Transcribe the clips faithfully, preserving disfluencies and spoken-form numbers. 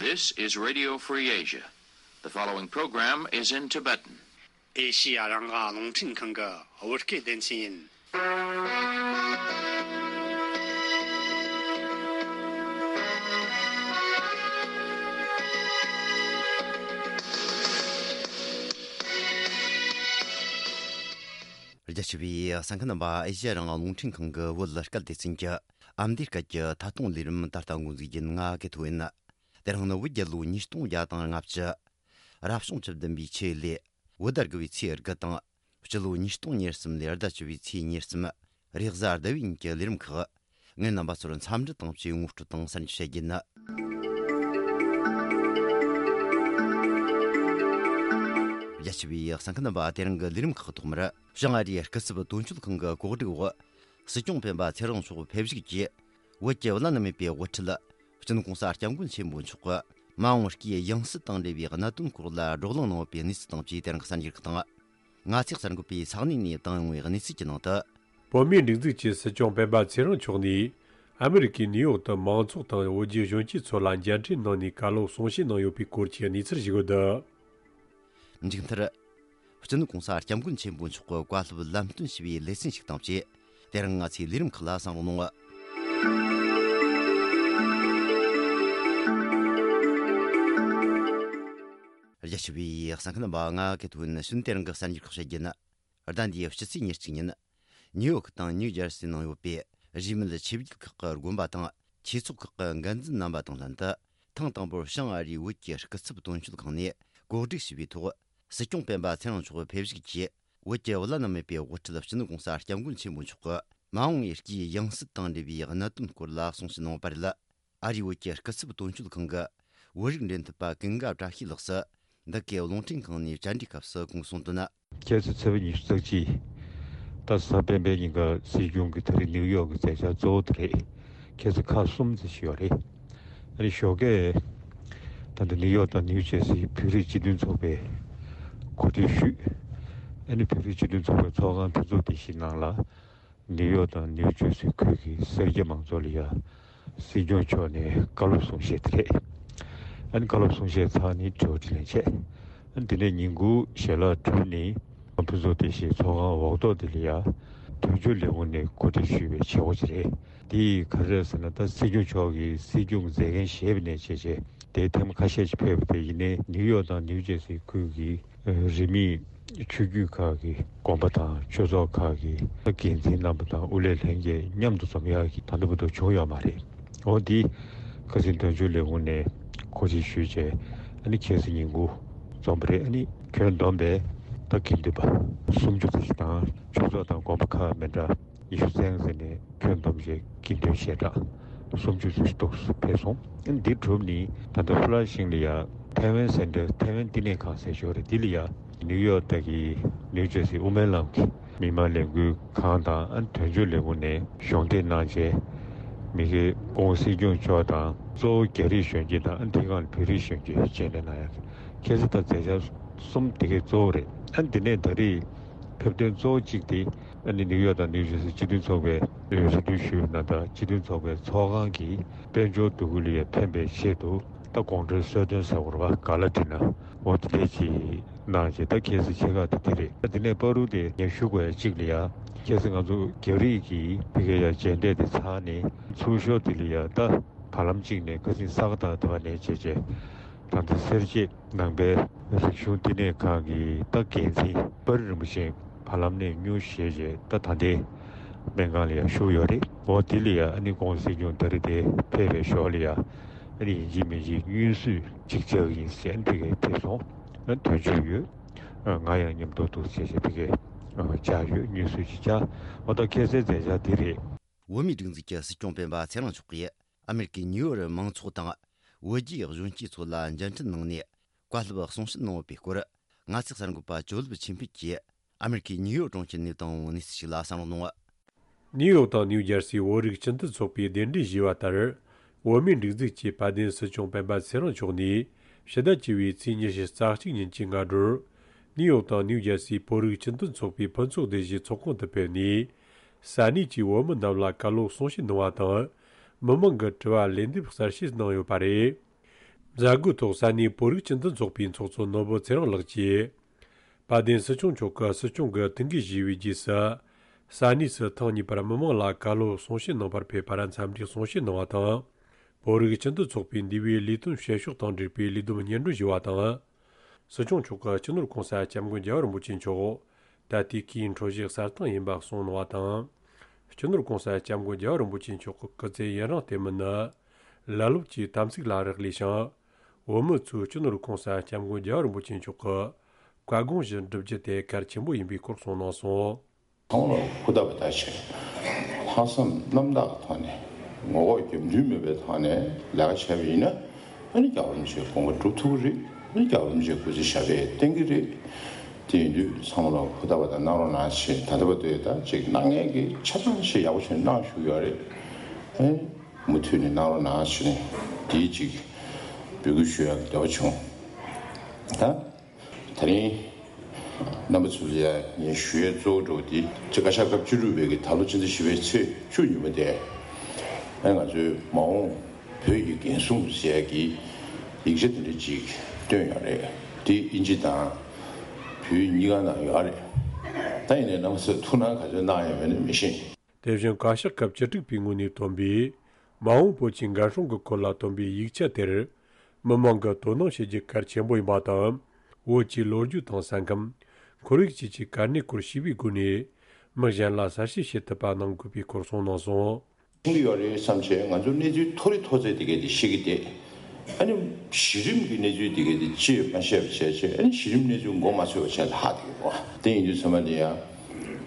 This is Radio Free Asia. The following program is in Tibetan. ཨེ་ཤི་ཡ་རང་དབང་རླུང་འཕྲིན་ཁང་གི་བོད་སྐད་སྡེ་ཚན་ཡིན། རྒྱ་ཆེ་བའི་གསན་མཁན་རྣམ་པ། ཨེ་ཤི་ཡ་རང་དབང་རླུང་འཕྲིན་ཁང་གི་བོད་སྐད་སྡེ་ཚན་གྱི་ཨ་མདོའི་སྐད་ཀྱི་ཐད་གཏོང་ལས་རིམ་ད་ལྟ་འགོ་འཛུགས་རྒྱུ་ཡིན། ང་གི་ཐོ་ཡིན། དེ་རིང་ནི་བོད་རྒྱལ་ལོ་ཉིས་སྟོང་བརྒྱ་དང་ལྔ་བཅུ། རབ་བྱུང་བཅུ་བདུན་པའི་ཆུ་ལོའི་བོད་ཟླ་དགུ་བའི་ཚེས་དགུ་དང་། སྤྱི་ལོ་ཉིས་སྟོང་ཉེར་གསུམ་ལོའི་ཟླ་བཅུ་བའི་ཚེས་ཉེར་གསུམ། རེས་གཟའ་ཟླ་བའི་ཉིན་གྱི་ལས་རིམ་ཁག་ངས་རྣམ་པ་ཚོར་འཚམས་འདྲི་དང་བཅས་ངོ་སྤྲོད་དང་གསར་འགྱུར་བཤད་རྒྱུ་ཡིན། རྒྱ་ཆེ་བའི་གསན་མཁན་རྣམ་པ། དེ་རིང་གི་ལས་རིམ་ཁག་ཐོག་མར། བྱང་ཨ་རིའི་སྐུ་ཚབ་དོན་གཅོད་ཁང་གི་གོ་སྒྲིག་འོག་སྲིད་སྐྱོང་སྤེན་པ་ཚེ་རིང་མཆོག་ཕེབས་བཞུགས་ཀྱིས། བོད་ཀྱི་བླ་ན་མེད་པའི་དབུ་ཁྲིད། སྤྱི་ནོར་༸གོང་ས་༸སྐྱབས་མགོན་ཆེན་པོ་མཆོག་གིས་མ་འོངས་སྐྱེས་ཡང་སྲིད་དང་འབྲེལ་བའི་གནད་དོན་སྐོར་ལ་བགྲོ་གླེང་གནང་ཡོད་པའི་གནས་ཚུལ་དང་བཅས་དེ་རིང་གསར་འགྱུར་ཁག་དང་། ང་ཚེ་གསར་འགོད་པས་ས་གནས་ནས་བཏང་ཡོང་བའི་གནས་ཚུལ་གྱི་ནང་དུ། བོད་མིའི་སྒྲིག་འཛུགས་ཀྱི་སྲིད་སྐྱོང་སྤེན་པ་ཚེ་རིང་མཆོག་ནས། ཨ་མི་རི་ཀའི་ནིའུ་ཡོག་ཏུ་མང་ཚོགས་དང་བོད་བརྒྱུད་གཞོན་སྐྱེས་ཚོ་ལ་མཇལ་འཕྲད་གནང་ནས་བཀའ་སློབ་གསུང་བཤད་གནང་ཡོད་པའི་སྐོར་གྱི་གནས་ཚུལ་ཞིག་ཡོད་འདུག་མཇུག་མཐར། སྤྱི་ནོར་༸གོང་ས་༸སྐྱབས་མགོན་ཆེན་པོ་མཆོག་གི་བཀའ་སློབ་ལམ་སྟོན་ཞུ་བའི་ལེ་ཚན་ཞིག་དང་བཅས། དེ་རིང་ང་ཚོའི་ལས་རིམ་ཁག་ལ་གསན་རོགས་གནང་། རྒྱ་ཆེ་བའི་གསན་མཁན་རྣམ་པ། ང་གི་ཐོ་ཡིན། ཕྱི་ནས་དེ་རིང་གི་གསར་འགྱུར་ཁག་བཤད་རྒྱུ་ཡིན། ཟླ་འདིའི་ཕྱི་ཚེས་ཉེར་གཅིག་ཉིན། ནིའུ་ཡོག་དང་ནིའུ་ཇར་སི་ནང་ཡོད་པའི་རིས་མེད་ཆོས་བརྒྱུད་ཁག་གི་དགོན་པ་དང་ཆོས་ཚོགས་ཁག་གི་འགན་འཛིན་རྣམ་པ་དང་ལྷན་དུ། ཐེངས་དང་པོར་བྱང་ཨ་རིའི་བོད་ཀྱི་སྐུ་ཚབ་དོན་གཅོད་ཁང་ནས་གོ་སྒྲིག་ཞུས་པའི་ཐོག་སྲིད་སྐྱོང་སྤེན་པ་ཚེ་རིང་མཆོག་ཕེབས་བཞུགས་ཀྱིས། བོད་ཀྱི་བླ་ན་མེད་པའི་དབུ་ཁྲིད་སྤྱི་ནོར་༸གོང་ས་༸སྐྱབས་མགོན་ཆེན་པོ་མཆོག་གི་མ་འོངས་པའི་སྐྱེས་ཡང་སྲིད་དང་འབྲེལ་བའི་གནད་དོན་སྐོར་ལ་གསུང་བཤད་གནང་བ་རེད། ཨ་རིའི་བོད་ཀྱི་སྐུ་ཚབ་དོན་གཅོད་ཁང་གི་བོད་རིགས་འབྲེལ་མཐུད་པ་ཀུན་དགའ་བཀྲ་ཤིས་ལགས་སུ། འདི་གའི་རླུང་འཕྲིན་ཁང་ནས་བཅར་འདྲིའི་སྐབས་སུ་གོང་གསུངས་དོན། ཁ་སང་ཚེས་པ་ཉི་ཤུ་རྩ་གཅིག་ད་གཟའ་སྤེན་པའི་ཉིན་ཀ་སྲིད་སྐྱོང་གིས་ད་རེས་ནིའུ་ཡོག་གི་མཛད་འཆར་གཙོ་བོ་དེ་རེད། ཁ་སང་ཁག་གསུམ་ཙམ་ཞིག་ཡོད་རེད། ཨ་ནི་ཞོགས་ཀས་ད་ལྟ་ནིའུ་ཡོག་དང་ནིའུ་ཇར་སིའི་བོད་རིགས་སྤྱི་མཐུན་ཚོགས་པས་གོ་སྒྲིག་ཞུས། ཨ་ནི་བོད་རིགས་སྤྱི་མཐུན་ཚོགས་པའི་ཚོགས་ཁང་ཕུན་ཚོགས་སྡེ་བཞི་ནང་ལ། ནིའུ་ཡོག་དང་ནིའུ་ཇར་སི་ཁུལ་གྱི་སེར་སྐྱ་མང་ཚོགས་ལ་ཡ། སྲིད་སྐྱོང་མཆོག་ནས་བཀའ་སློབ་གསུང་བཤད་དེ་རེད། ཨ་ནི་བཀའ་སློབ་གསུང་བཤད་ཚར་ནས་དྲི་བ་དྲིས་ལན་བྱས། ཨ་ནི་དེ་ནས་ཉིན་གུང་ཞལ་ལག་གྲུབ་ནས་ཕུན་ཚོགས་བདེ་གཤེགས་ཚོགས་ཁང་འོག་ཐོག་དེ་ལ་ཡ། དོན་གཅོད་ལས་ཁུངས་ནས་གོ་སྒྲིག་ཞུས་པའི་བྱེད་སྒོ་ཅིག་རེད། དེ་ག་རེ་རེད་ཟེར་ན། ད་སྲིད་སྐྱོང་མཆོག་གིས་སྲིད་སྐྱོང་མཛད་འགན་བཞེས་པ་ནས་བྱས་བྱས་དེ་ཐེངས་ཁ་ཤས་ཤིག་ཕེབས་པ་དེ་ཡིན་ནའི་ནིའུ་ཡོག་དང་ནིའུ་ཇར་སི་ཁུལ་གྱི་རིས་མེད་ཆོས་བརྒྱུད་ཁག་གི་དགོན་པ་དང་ཆོས་ཚོགས་ཁག་གི་འགན་འཛིན་རྣམ་པ་དང་དབུ་ལས་ལྷན་རྒྱས་མཉམ་དུ་འཛོམས་ཡག་གི་ད་ལྟ་བར་དུ་བྱུང་ཡོད་མ་རེད། འོ་འདི་ཁ་སང་དོན་གཅོད་ལས་ཁུངས་ནས་གོ་སྒྲིག་ཞུས་བྱས། ཨ་ནི་ཁ་སང་ཉིན་གུང་འཛོམས་པ་རེད། ཨ་ནི་ཁྱོན་བསྡོམས་པས་ད་དགེ་འདུན་པ་སུམ་ཅུ་ཙམ་ཞིག་དང་ཆོས་ཚོགས་དང་དགོན་པ་ཁག་མི་འདྲ་ཉི་ཤུ་ཙམ་ཟིན་ནས་ཁྱོན་བསྡོམས་བྱས་དགེ་འདུན་ཞལ་གྲངས་སུམ་ཅུ་ཙམ་ཞིག་ཏོག་ཙམ་ཕེབས་སོང་། ཨ་ནི་འདི་གྲུབ་ནས་ད་ལྟ་ཧྥུ་ལ་ཤིང་ལ་ཡ་ཐའེ་ཝན་སེན་ཊར་ཐའེ་ཝན་བསྟི་གནས་ཁང་ཟེར་ཞོར་རེད། འདི་ལ་ཡ་ནིའུ་ཡོག་ད་གི་ནིའུ་ཇར་སི་དབུ་མའི་ལམ་གྱི་མི་མང་ལས་འགུལ་ཁང་དང་། ཨ་ནི་དོན་གཅོད་ལས་ཁུངས་ནས་གཞུང་འབྲེལ་གནང་བྱས་མི་སྒེར་སྐུ་ངོ་སྲིད་སྐྱོང་མཆོག་དང་། གཙོ་བོ་རྒྱ་རིགས་གཞོན་སྐྱེས་དང་། ཨ་ནི་དེའི་སྒང་ལ་བོད་རིགས་གཞོན་སྐྱེས་མཇལ་འཕྲད་གནང་ཡག་ཁ་སང་ད་མཛད་འཆར་གསུམ་དེ་གས་གཙོ་བོ་རེད། ཨ་ནི་དེ་ནས་ད་རེས་ཕེབས་དོན་གཙོ་བོ་གཅིག་དེ་ཨ་ནི་ནིའུ་ཡོག་དང་ནིའུ་ཇར་སི་སྤྱི་མཐུན་ཚོགས་པའི་རེ་སྐུལ་ཞུས་ནང་ལྟར་སྤྱི་མཐུན་ཚོགས་པའི་ཚོགས་ཁང་གི་དཔལ་འབྱོར་འདུ་འགོད་ལ་ཡ་ཕན་པའི་ཆེད་དུ་ད་དགོང་དྲོའི་གསོལ་སྟོན་ཟེར་དགོས་རེད་པ། ག་ལ་འདྲི་ན་འོ་དེ་འདྲས་ཅིག་གནང་རྗེས་ད་ཁ་སང་ཆེ་ཁག་དེ་དེ་རེད། ད་དེ་ནས་བར་དུ་དེ་ངས་ཞུ་དགོས་ཡ་གཅིག་ལ་ཡ། ཁ་སང་ང་ཚོ་རྒྱ་རིགས་ཀྱི་ཕ་གིར་ཡ་མཇལ་འཕྲད་དེ་ཚར་ནས་ཚུར་ཤོག་དེ་ལ་ཡ། ད་བར་ལམ་གཅིག་ནས་ཁ་སང་ས་ག་ཟླ་བ་ནས་བྱས་བྱས་ད་ལྟ་སེར་བྱེས་ནང་པའི་རིག་གཞུང་བསྟི་གནས་ཁང་གི་ད་འགན་འཛིན་པར་རིན་པོ་ཆེ་བར་ལམ་ནས་མྱུར་བཞེས་བྱས་ད་ད་ལྟའི་སྨན་ཁང་ལ་ཡ་བཞུགས་ཡོད་རེད། འོ་དེ་ལ་ཡ་ཨ་ནི་ཁོང་སྲིད་སྐྱོང་ད་རེས་དེ་ཕེབས་པའི་ཞོར་ལ་ཡ། ཨ་ནི་ཡིན་གཅིག་མིན་གཅིག་བརྙན་བཟོ་ཅིག་བྱ་གི་ཡིན་ཟེར་ཨ་ནི་དེ་གས་ཕེབས་སོང་། ཨ་ནི་དོན་གཅོད་ཡོད། ཨ་ང་ཡང་མཉམ་དུ་འདུག་ཟེར་བྱས་དེ་གས་ཨ་བྱ་ཡོད། བརྙན་བཟོ་ཅིག་བྱ། འོ་ད་ཁ་སང་མཛད་འཆར་དེ་རེད། བོད་མིའི་སྒྲིག་འཛུགས་ཀྱི་སྲིད་སྐྱོང་སྤེན་པ་ཚེ་རིང་མཆོག་གིས་ཨ་མེ་རི་ཀའི་ནིའུ་ཡོག་མང་ཚོགས་དང་བོད་བརྒྱུད་གཞོན་སྐྱེས་ཚོ་ལ་མཇལ་འཕྲད་གནང་ནས་བཀའ་སློབ་གསུང་བཤད་གནང་ཡོད་པའི་སྐོར། ང་ཚོའི་གསར་འགོད་པ་ཇོ་ལེབ་ཆོས་འཕེལ་གྱིས་ཨ་མེ་རི་ཀའི་ནིའུ་ཡོག་གྲོང་ཁྱེར་ནས་བཏང་བའི་གནས་ཚུལ་ཞིག་ལ་གསན་རོགས་གནང་། ནིའུ་ཡོག་དང་ནིའུ་ཇར་སིའི་བོད་རིགས་སྤྱི་མཐུན་ཚོགས་པས་གདན་འདྲེན་ཞུས་པ་ལྟར། བོད་མིའི་སྒྲིག་འཛུགས་ཀྱི་དཔལ་ལྡན་སྲིད་སྐྱོང་སྤེན་པ་ཚེ་རིང་མཆོག་ནས་ཕྱི་ཟླ་བཅུ་བའི་ཚེས་ཉི་ཤུ་རྩ་གཅིག་ཉིན་གྱི་སྔ་དྲོར། ནིའུ་ཡོག་དང་ནིའུ་ཇར་སིའི་བོད་རིགས་སྤྱི་མཐུན་ཚོགས་པའི་ཕུན་ཚོགས་སྡེ་བཞིའི་ཚོགས་ཁང་དུ་ཕེབས་ནས། ས་གནས་ཀྱི་བོད་མི་རྣམས་ལ་བཀའ་སློབ་གསུང་བཤད་གནང་བ་དང་། མི་མང་གི་དྲི་བར་ལན་འདེབས་གསལ་བཤད་གནང་ཡོད་པ་རེད། མཛད་སྒོའི་ཐོག་ས་གནས་བོད་རིགས་སྤྱི་མཐུན་ཚོགས་པའི་ཚོགས་གཙོ་ནོར་བུ་ཚེ་རིང་ལགས་ཀྱིས། དཔལ་ལྡན་སྲིད་སྐྱོང་མཆོག་གིས་སྲིད་སྐྱོང་གི་ཐུགས་འགན་བཞེས་པའི་རྗེས་སུ། ས་གནས་སུ་ཐེངས་གཉིས་པར་མི་མང་ལ་བཀའ་སློབ་གསུང་བཤད་གནང་བར་ཕེབས་པར་འཚམས་འདྲིའི་གསུང་བཤད་གནང་བ་དང་། བོད་རིགས་སྤྱི་མཐུན་ཚོགས་པའི་འདས་པའི་ལས་དོན་བྱེད་ཕྱོགས་དང་འབྲེལ་བའི་ལས་བསྡོམས་སྙན་སྒྲོན་ཞུས་པ་དང་། སྲིད་སྐྱོང་མཆོག་གིས་སྤྱི་ནོར་གོང་ས་སྐྱབས་མགོན་རྒྱལ་བ་རིན་པོ་ཆེ་མཆོག་ད་ལྟའི་སྐུའི་འཕྲོད་བཞེས་གསལ་བཏང་ཡིན་པ་གསུངས་གནང་བ་དང་། སྤྱི་ནོར་གོང་ས་སྐྱབས་མགོན་རྒྱལ་བ་རིན་པོ་ཆེ་མཆོག་གི་སྐུ་ཚེ་ཡུན་རིང་བརྟན་མིན་ནི། ལ་ལུགས་ཀྱི་དམ་ཚིག་ལ་རག་ལས་ཤིང་། བོད་མི་ཚོས་སྤྱི་ནོར་གོང་ས་སྐྱབས་མགོན་རྒྱལ་བ་རིན་པོ་ཆེ་མཆོག་གི་བཀའ་དགོངས་བཞིན་བསྒྲུབ་རྒྱུ་དེ་གལ་ཆེན་པོ་ཡིན་པའི་སྐོར་གསུངས་གནང་སོང་། ཚང་མ་ལ་ཧུར་ཐག་པ་ཐག་བྱས། ལྷག་བསམ་རྣམ་དག་གི་ཐོག་ནས་ངོ་ལྐོག་རྒྱབ་མདུན་མེད་པའི་ཐོག་ནས་ལས་ཀ་བྱས་པ་ཡིན་ན། ཨ་ནི་རྒྱལ་བ་རིན་པོ་ཆེའི་དགོངས་པ་སྒྲུབ་ཐུབ་ཀྱི་རེད། ཨ་ནི་རྒྱལ་བ་རིན་པོ་ཆེའི་སྐུ་ཚེ་ཞབས་པད་བརྟན་གྱི་རེད། དེ་ཡིན་དུས་ཚང་མ་ལ་ཧུར་ཐག་པ་དང་གནང་རོགས་གནང་ཞེས། ད་ལྟ་བར་དུ་ད་ཅིག་གནང་མཁན་གྱིས་ཆ་ཚང་ཞིག་ཡག་པོ་ཞིག་གནང་བཞུགས་ཡོད་རེད། ཨེ། མུ་མཐུད་ནས་གནང་རོགས་གནང་ཞེས་ནས་དེའི་ཅིག་འབོད་སྐུལ་ཞུ་ཡག་འདོད་པ་བྱུང་། ད། ད་རིང་རྣམ་པ་ཚོ་ལ་ངས་ཞུ་ཡས་གཙོ་བོ་འདྲ་བོ་དེ། ཅིག་བཀའ་ཤག་སྐབས་བཅུ་དྲུག་པའི་གི་ད་ལོ་སྤྱི་ཟླ་བཞི་པའི་ཚེས་བཅུ་ཉིན་མོ་དེ། ཨ་ང་ཚོའི་མ་འོངས་བོད་ཀྱི་འགན་སྲུང་ཟེར་ཡས་ཀྱི་ཡིག་ཆ་དེ་འདྲ་ཅིག་བཏོན་ཡོད་རེད། དེ་ཨིན་ཇི་དང་བོད་གཉིས་ཀ་ནང་ཡོད་རེད། ད་ཡིན་ནའི་རྣམ་པ་ཚོས་ཐུགས་སྣང་ག་ཚོད་གནང་ཡོད་མེད་ནི་མི་ཤེས། དེ་བཞིན་བཀའ་ཤག་སྐབས་བཅུ་དྲུག་པའི་ངོས་ནས་བཏོན་པའི་མ་འོངས་བོད་ཀྱི་འགན་སྲུང་གི་སྐོར་ལ་བཏོན་པའི་ཡིག་ཆ་དེར། མི་མང་གིས་དོ་སྣང་བྱེད་རྒྱུ་གལ་ཆེན་པོ་ཡིན་པ་དང་། བོད་ཀྱི་ལོ་རྒྱུས་དང་ས་ཁམས། ཁོར་ཡུག་བཅས་ཀྱི་གལ་གནད་སྐོར་ཤེས་པའི་སྒོ་ནས། མི་གཞན་ལ་གསལ་བཤད་བྱེད་ཐུབ་པ་གནང་དགོས་པའི་སྐོར་གསུངས་གནང་སོང་། ཤེས་ཀྱི་ཡོད་རེད་བསམ་བྱས། ང་ཚོ་གནས་ཚུལ་མཐོ་རིས་མཐོ་ཚད་དེ་གས་དེ་ཤེས་ཀྱི་བསྡད། ཨ་ནི་གཞི་རིམ་གྱི་གནས་ཚུལ་དེ་གས་དེ་ཅིས་མ་ཤེས་པ་བྱས་བྱས། ཨ་ནི་གཞི་རིམ་གནས་ཚུལ་མགོ་མ་ཚོས་པ་བྱས་ལ་ཧ་དེ་གས་གོ། དེ་ཡིན་དུས་ཚང་མ་དེ་ཡང་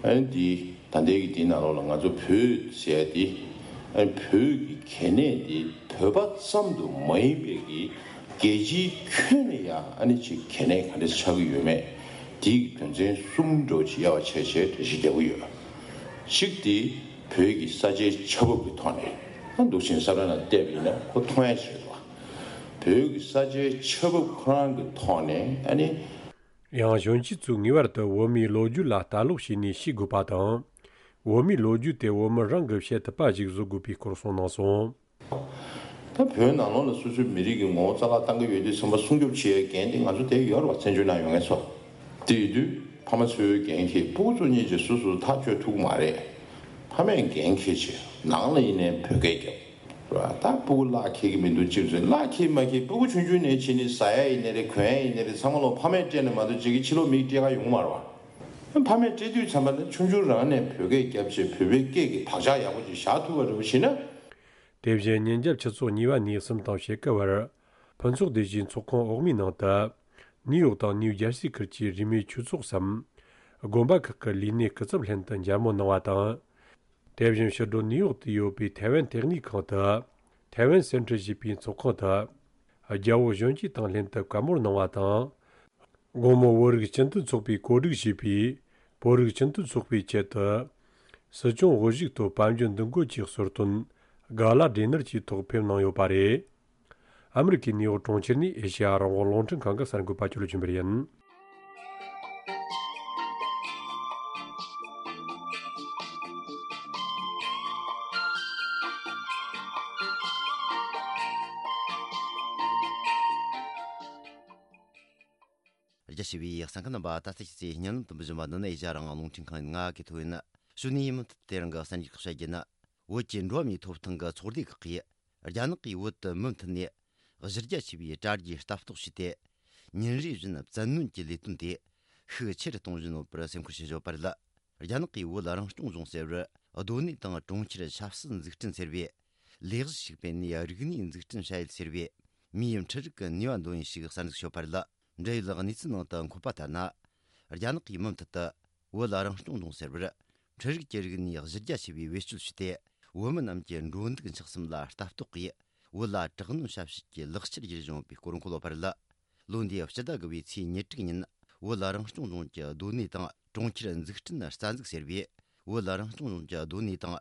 ཨ་ནི་དེ། ད་ལྟའི་གི་དེའི་ནང་ལོགས་ལ་ང་ཚོ་བོད་ཟེར་ཡ་དེ། ཨ་ནི་བོད་ཀྱི་གལ་གནད་དེ་བོད་པ་ཙམ་དུ་མ་ཡིན་པའི་གི་རྒྱལ་སྤྱིའི་ཁྱོན་ནས་ཡང་ཨ་ནི་ཅིག་གལ་གནད་ག་འདྲ་ཆགས་ཀྱི་ཡོད་མེད། དེའི་གི་དོན་ཚན་གསུམ་འདྲ་བོ་ཅིག་དབྱེ་བ་ཕྱེ་བྱས་འགྲེལ་བཤད་རྒྱག་གི་ཡོད། གཅིག་དེ་བོད་ཀྱི་ས་ཆའི་ཆ་བབ་ཀྱི་ཐོག་ནས། ཨ་འདུག་ཕྱིན་ས་ར་ན་བལྟས་པ་ཡིན་ན་ཁོ་མཐོང་ཡ་ཞིག་རེད་བ། བོད་ཀྱི་ས་ཆའི་ཆ་བབ་ཁོ་རང་གི་ཐོག་ནས་ཨ་ནི། ཡང་གཞོན་སྐྱེས་ཚོས་ངེས་པར་དུ་བོད་མིའི་ལོ་རྒྱུས་ལ་ལྟ་ཀློག་བྱས་ནས་ཤེས་དགོས་པ་དང་། བོད་མིའི་ལོ་རྒྱུས་དེ་བོད་མི་རང་གིས་བཤད་ཐུབ་པ་ཞིག་བཟོ་དགོས་པའི་སྐོར་གསུངས་གནང་སོང་། ད་བོད་ནང་ལོགས་ལ་སོ་སོའི་མི་རིགས་ཀྱི་ངོ་བོ་རྩ་བརླག་བཏང་གི་ཡོད་དུས་ཙམ་པ་སྲུང་སྐྱོབ་བྱེད་ཡའི་འགན་དེ་ང་ཚོ་དེ་ཡོད་རེད་བ། བཙན་བྱོལ་ནང་ཡོད་མཁན་ཚོ། དེ་ཡིན་དུས་ཕ་མ་ཚོའི་འགན་འཁྱེར། སྤུ་གུ་ཚོ་གཉིས་ཀྱིས་སོ་སོ་ཐག་གཅོད་ཐུབ་ཀྱི་མ་རེད། ཕ་མས་འགན་འཁྱེར་བྱས་ནང་ལ་ཡིན་ནའི་བོད་སྐད་རྒྱབ། ར། ད་སྤུ་གུ་གླགས་འཁེལ་གྱི་མི་འདུག་ཅིག་ཟེར། གླགས་འཁེལ་མ་འཁེལ་སྤུ་གུ་ཆུང་ཆུང་ནས་བྱས་ནས་ཟ་ཡ་ཡིན་ནའི་རེད། གོན་ཡ་ཡིན་ནའི་རེད། ཚང་མ་ལོ་ཕ་མས་སྤྲད་ནས་མ་གཏོགས་ཅིག་གི་ཕྱི་ལོགས་མིས་སྤྲད་ག་ཡོང་མ་རེད་བ། ཕ་མས་སྤྲད་དུས་ཙམ་པ་ལ་ཆུང་ཆུང་རང་ནས་བོད་སྐད་རྒྱབ་བྱས། བོད་པའི་སྐད་ཀྱི་བག་ཆགས་ཡག་པོ་ཅིག་བཞག་ཐུབ་པ་རེད་བ་བྱས་ན། དེ་བཞིན་ཉིན་རྒྱབ་ཆུ་ཚོད་གཉིས་པ་ནས་གསུམ་དང་ཕྱེད་ཀ་བར། ཕུན་ཚོགས་སྡེ་བཞིའི་ཚོགས་ཁང་འོག་མའི་ནང་དུ། ནིའུ་ཡོག་དང་ནིའུ་ཇར་སི་ཁུལ་གྱི་རིས་མེད་ཆོས་ཚོགས་སམ། དགོན་པ་ཁག་གི་ལས་སྣེ་སྐུ་ཚབ་ལྷན་དུ་མཇལ་མོལ་གནང་བ་དང་། དེ་བཞིན་ཕྱི་དྲོ་ནིའུ་ཡོག་ཏུ་ཡོད་པའི་ཐའེ་ཝན་ལྟེ་གནས་ཁང་དུ། ཐའེ་ཝན་སེན་ཊར་ཞེས་པའི་ཚོགས་ཁང་དུ། རྒྱ་བོད་གཞོན་སྐྱེས་དང་ལྷན་དུ་བཀའ་མོལ་གནང་བ་དང་། དགོང་མོ་བོད་རིགས་སྤྱི་མཐུན་ཚོགས་པས་གོ་སྒྲིག་བྱས་པའི་བོད་རིགས་སྤྱི་མཐུན་ཚོགས་པའི་ཆེད་དུ། སྲིད་སྐྱོང་དབུ་བཞུགས་ཐོག་དཔལ་འབྱོར་འདུ་འགོད་ཀྱི་གསོལ་སྟོན་ག་ལ་ཌི་ནར་གྱི་ཐོག་ཕེབས་གནང་ཡོད་པ་རེད། ཨ་མི་རི་ཀའི་ནིའུ་ཡོག་གྲོང་ཁྱེར་ནས་ཨེ་ཤེ་ཡ་རང་དབང་རླུང་འཕྲིན་ཁང་གི་གསར་འགོད་པ་ཅོ་ལོ་ཆོས་འཕེལ་ཡིན། རྒྱ་ཆེ་བའི་གསན་མཁན་རྣམ་པ། ད་ལྟ་ཁྱེད་ཚོས་སྙན་ལམ་དུ་འབུལ་བཞིན་པ་འདི་ནི་ཨེ་ཤ་ཡ་རང་དབང་རླུང་འཕྲིན་ཁང་ཡིན། ང་གི་ཐོ་ཡིན། གཞུག་ནས་མུ་མཐུད་དེ་རིང་གི་གསར་འགྱུར་ཁག་བཤད་རྒྱུ་ནི། བོད་ཀྱི་འགྲོ་བ་མིའི་ཐོབ་ཐང་གི་ཚོགས་སྡེ་ཁག་གིས་རྒྱ་ནག་གིས་བོད་དུ་མུ་མཐུད་ནས་གཞི་རྒྱ་ཆེ་བའི་དྲ་རྒྱའི་ལྟ་རྟོག་བྱས་ཏེ། ཉིན་རེ་བཞིན་བཙན་གནོན་གྱི་ལས་དོན་དེ་ཤུགས་ཆེ་རུ་གཏོང་བཞིན་ཡོད་པར་སེམས་ཁུར་བྱེད་བཞིན་ཡོད་པ་རེད། རྒྱ་ནག་གིས་བོད་རང་སྐྱོང་ལྗོངས་ཟེར་བར་སྡོད་གནས་དང་གྲོང་ཁྱེར་ཆབ་སྲིད་འཛུགས་སྐྲུན་ཟེར་བའི་ལས་གཞི་ཞིག་སྤེལ་ནས། རིག་གནས་འཛུགས་སྐྲུན་བྱ་ཡུལ་ཟེར་བའི་མིའི་འཕྲུལ་རིག་གི་ནུས་པ་འདོན་ཡུལ་ཞིག་གསར་འཛུགས་བྱས་ཡོད་པ་རེད། འབྲེལ་ཡོད་གནས་ཚུལ་ནང་དུ་འཁོད་པ་ལྟར་ན། རྒྱ་ནག་གིས་མུ་མཐུད་དུ་བོད་རང་སྐྱོང་ལྗོངས་ཟེར་བར་འཕྲུལ་རིག་གི་རིག་གནས་གཞི་རྒྱ་ཆེ་བའི་བེད་སྤྱོད་བྱས་ཏེ། བོད་མི་རྣམས་ཀྱི་འགྲོ་འདུག་འཁྱག་གསུམ་ལ་ལྟ་རྟོག་གིས། བོད་ལ་དྲག་གནོན་ཞབས་ཞུ་གི་ལག་ཆར་གྱུར་བཞིན་ཡོད་པའི་སྐོར་འཁོད་ཡོད་པ་རེད། ལོ་འདིའི་སྤྱི་ཟླ་དགུ་པའི་ཚེས་ཉེར་དྲུག་ཉིན། བོད་རང་སྐྱོང་ལྗོངས་ཀྱི་སྡོད་གནས་དང་གྲོང་ཁྱེར་འཛུགས་སྐྲུན་རྩ་འཛུགས་ཟེར་བའི། བོད་རང་སྐྱོང་ལྗོངས་ཀྱི་སྡོད་གནས་དང་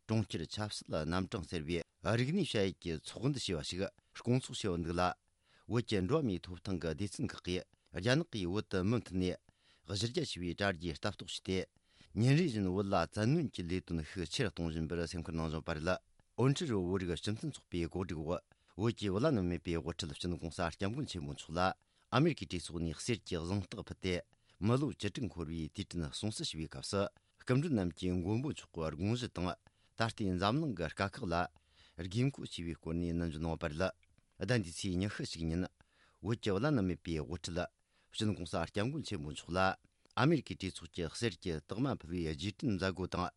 གྲོང་ཁྱེར་ཆབ་སྲིད་རྣམ་གྲངས་ཟེར་བའི་རིག་གནས་བྱ་ཡུལ་གྱི་ཚོགས་འདུ་ཞེས་པ་ཞིག་སྐོང་ཚོགས་བྱས་ཡོད་འདུག་ལ། བོད་ཀྱི་འགྲོ་བ་མིའི་ཐོབ་ཐང་གི་སྡེ་ཚན་ཁག་གིས། རྒྱ་ནག་གིས་བོད་དུ་མུ་མཐུད་ནས་གཞི་རྒྱ་ཆེ་བའི་དྲ་རྒྱའི་ལྟ་རྟོག་བྱས་ཏེ། ཉིན་རེ་བཞིན་བོད་ལ་བཙན་གནོན་གྱི་ལས་དོན་ཤུགས་ཆེ་རུ་གཏོང་བཞིན་པར་སེམས་ཁུར་གནང་བཞིན་པ་རེད། ཨོན་ཁྲི་རུ་བོད་རིགས་སྤྱི་མཐུན་ཚོགས་པའི་གོ་སྒྲིག་འོག་བོད་ཀྱི་བླ་ན་མེད་པའི་དབུ་ཁྲིད་སྤྱི་ནོར་༸གོང་ས་༸སྐྱབས་མགོན་ཆེན་པོ་མཆོག་ལ་ཨ་མེ་རི་ཀའི་གྲོས་ཚོགས་ནས་གསེར་གྱི་གཟེངས་རྟགས་ཕུལ་ཏེ། མི་ལོ་བཅུ་དྲུག་འཁོར་བའི་དུས་དྲན་སྲུང་བརྩི་ཞུ་བའི་སྐབས་སུ། སྐུ་མགྲོན་རྣམས་ཀྱིས་མགོན་པོ་མཆོག་གི་དགོངས་གཞི་དང་། ད་ལྟའི་འཛམ་གླིང་གི་དཀའ་ཁག་ལ་དགོས་མཁོ་ཆེ་བའི་སྐོར་ནས་ནན་བརྗོད་གནང་བ་རེད། ཟླ་འདིའི་ཚེས་ཉི་ཤུ་གཅིག་ཉིན། བོད་ཀྱི་བླ་ན་མེད་པའི་དབུ་ཁྲིད་སྤྱི་ནོར་༸གོང་ས་༸སྐྱབས་མགོན་ཆེན་པོ་མཆོག་ལ། ཨ་མེ་རི་ཀའི་གྲོས་ཚོགས་ཀྱི་གསེར་གྱི་རྟགས་མ་ཕུལ་བའི་རྗེས་དྲན་མཛད་སྒོ་དང་།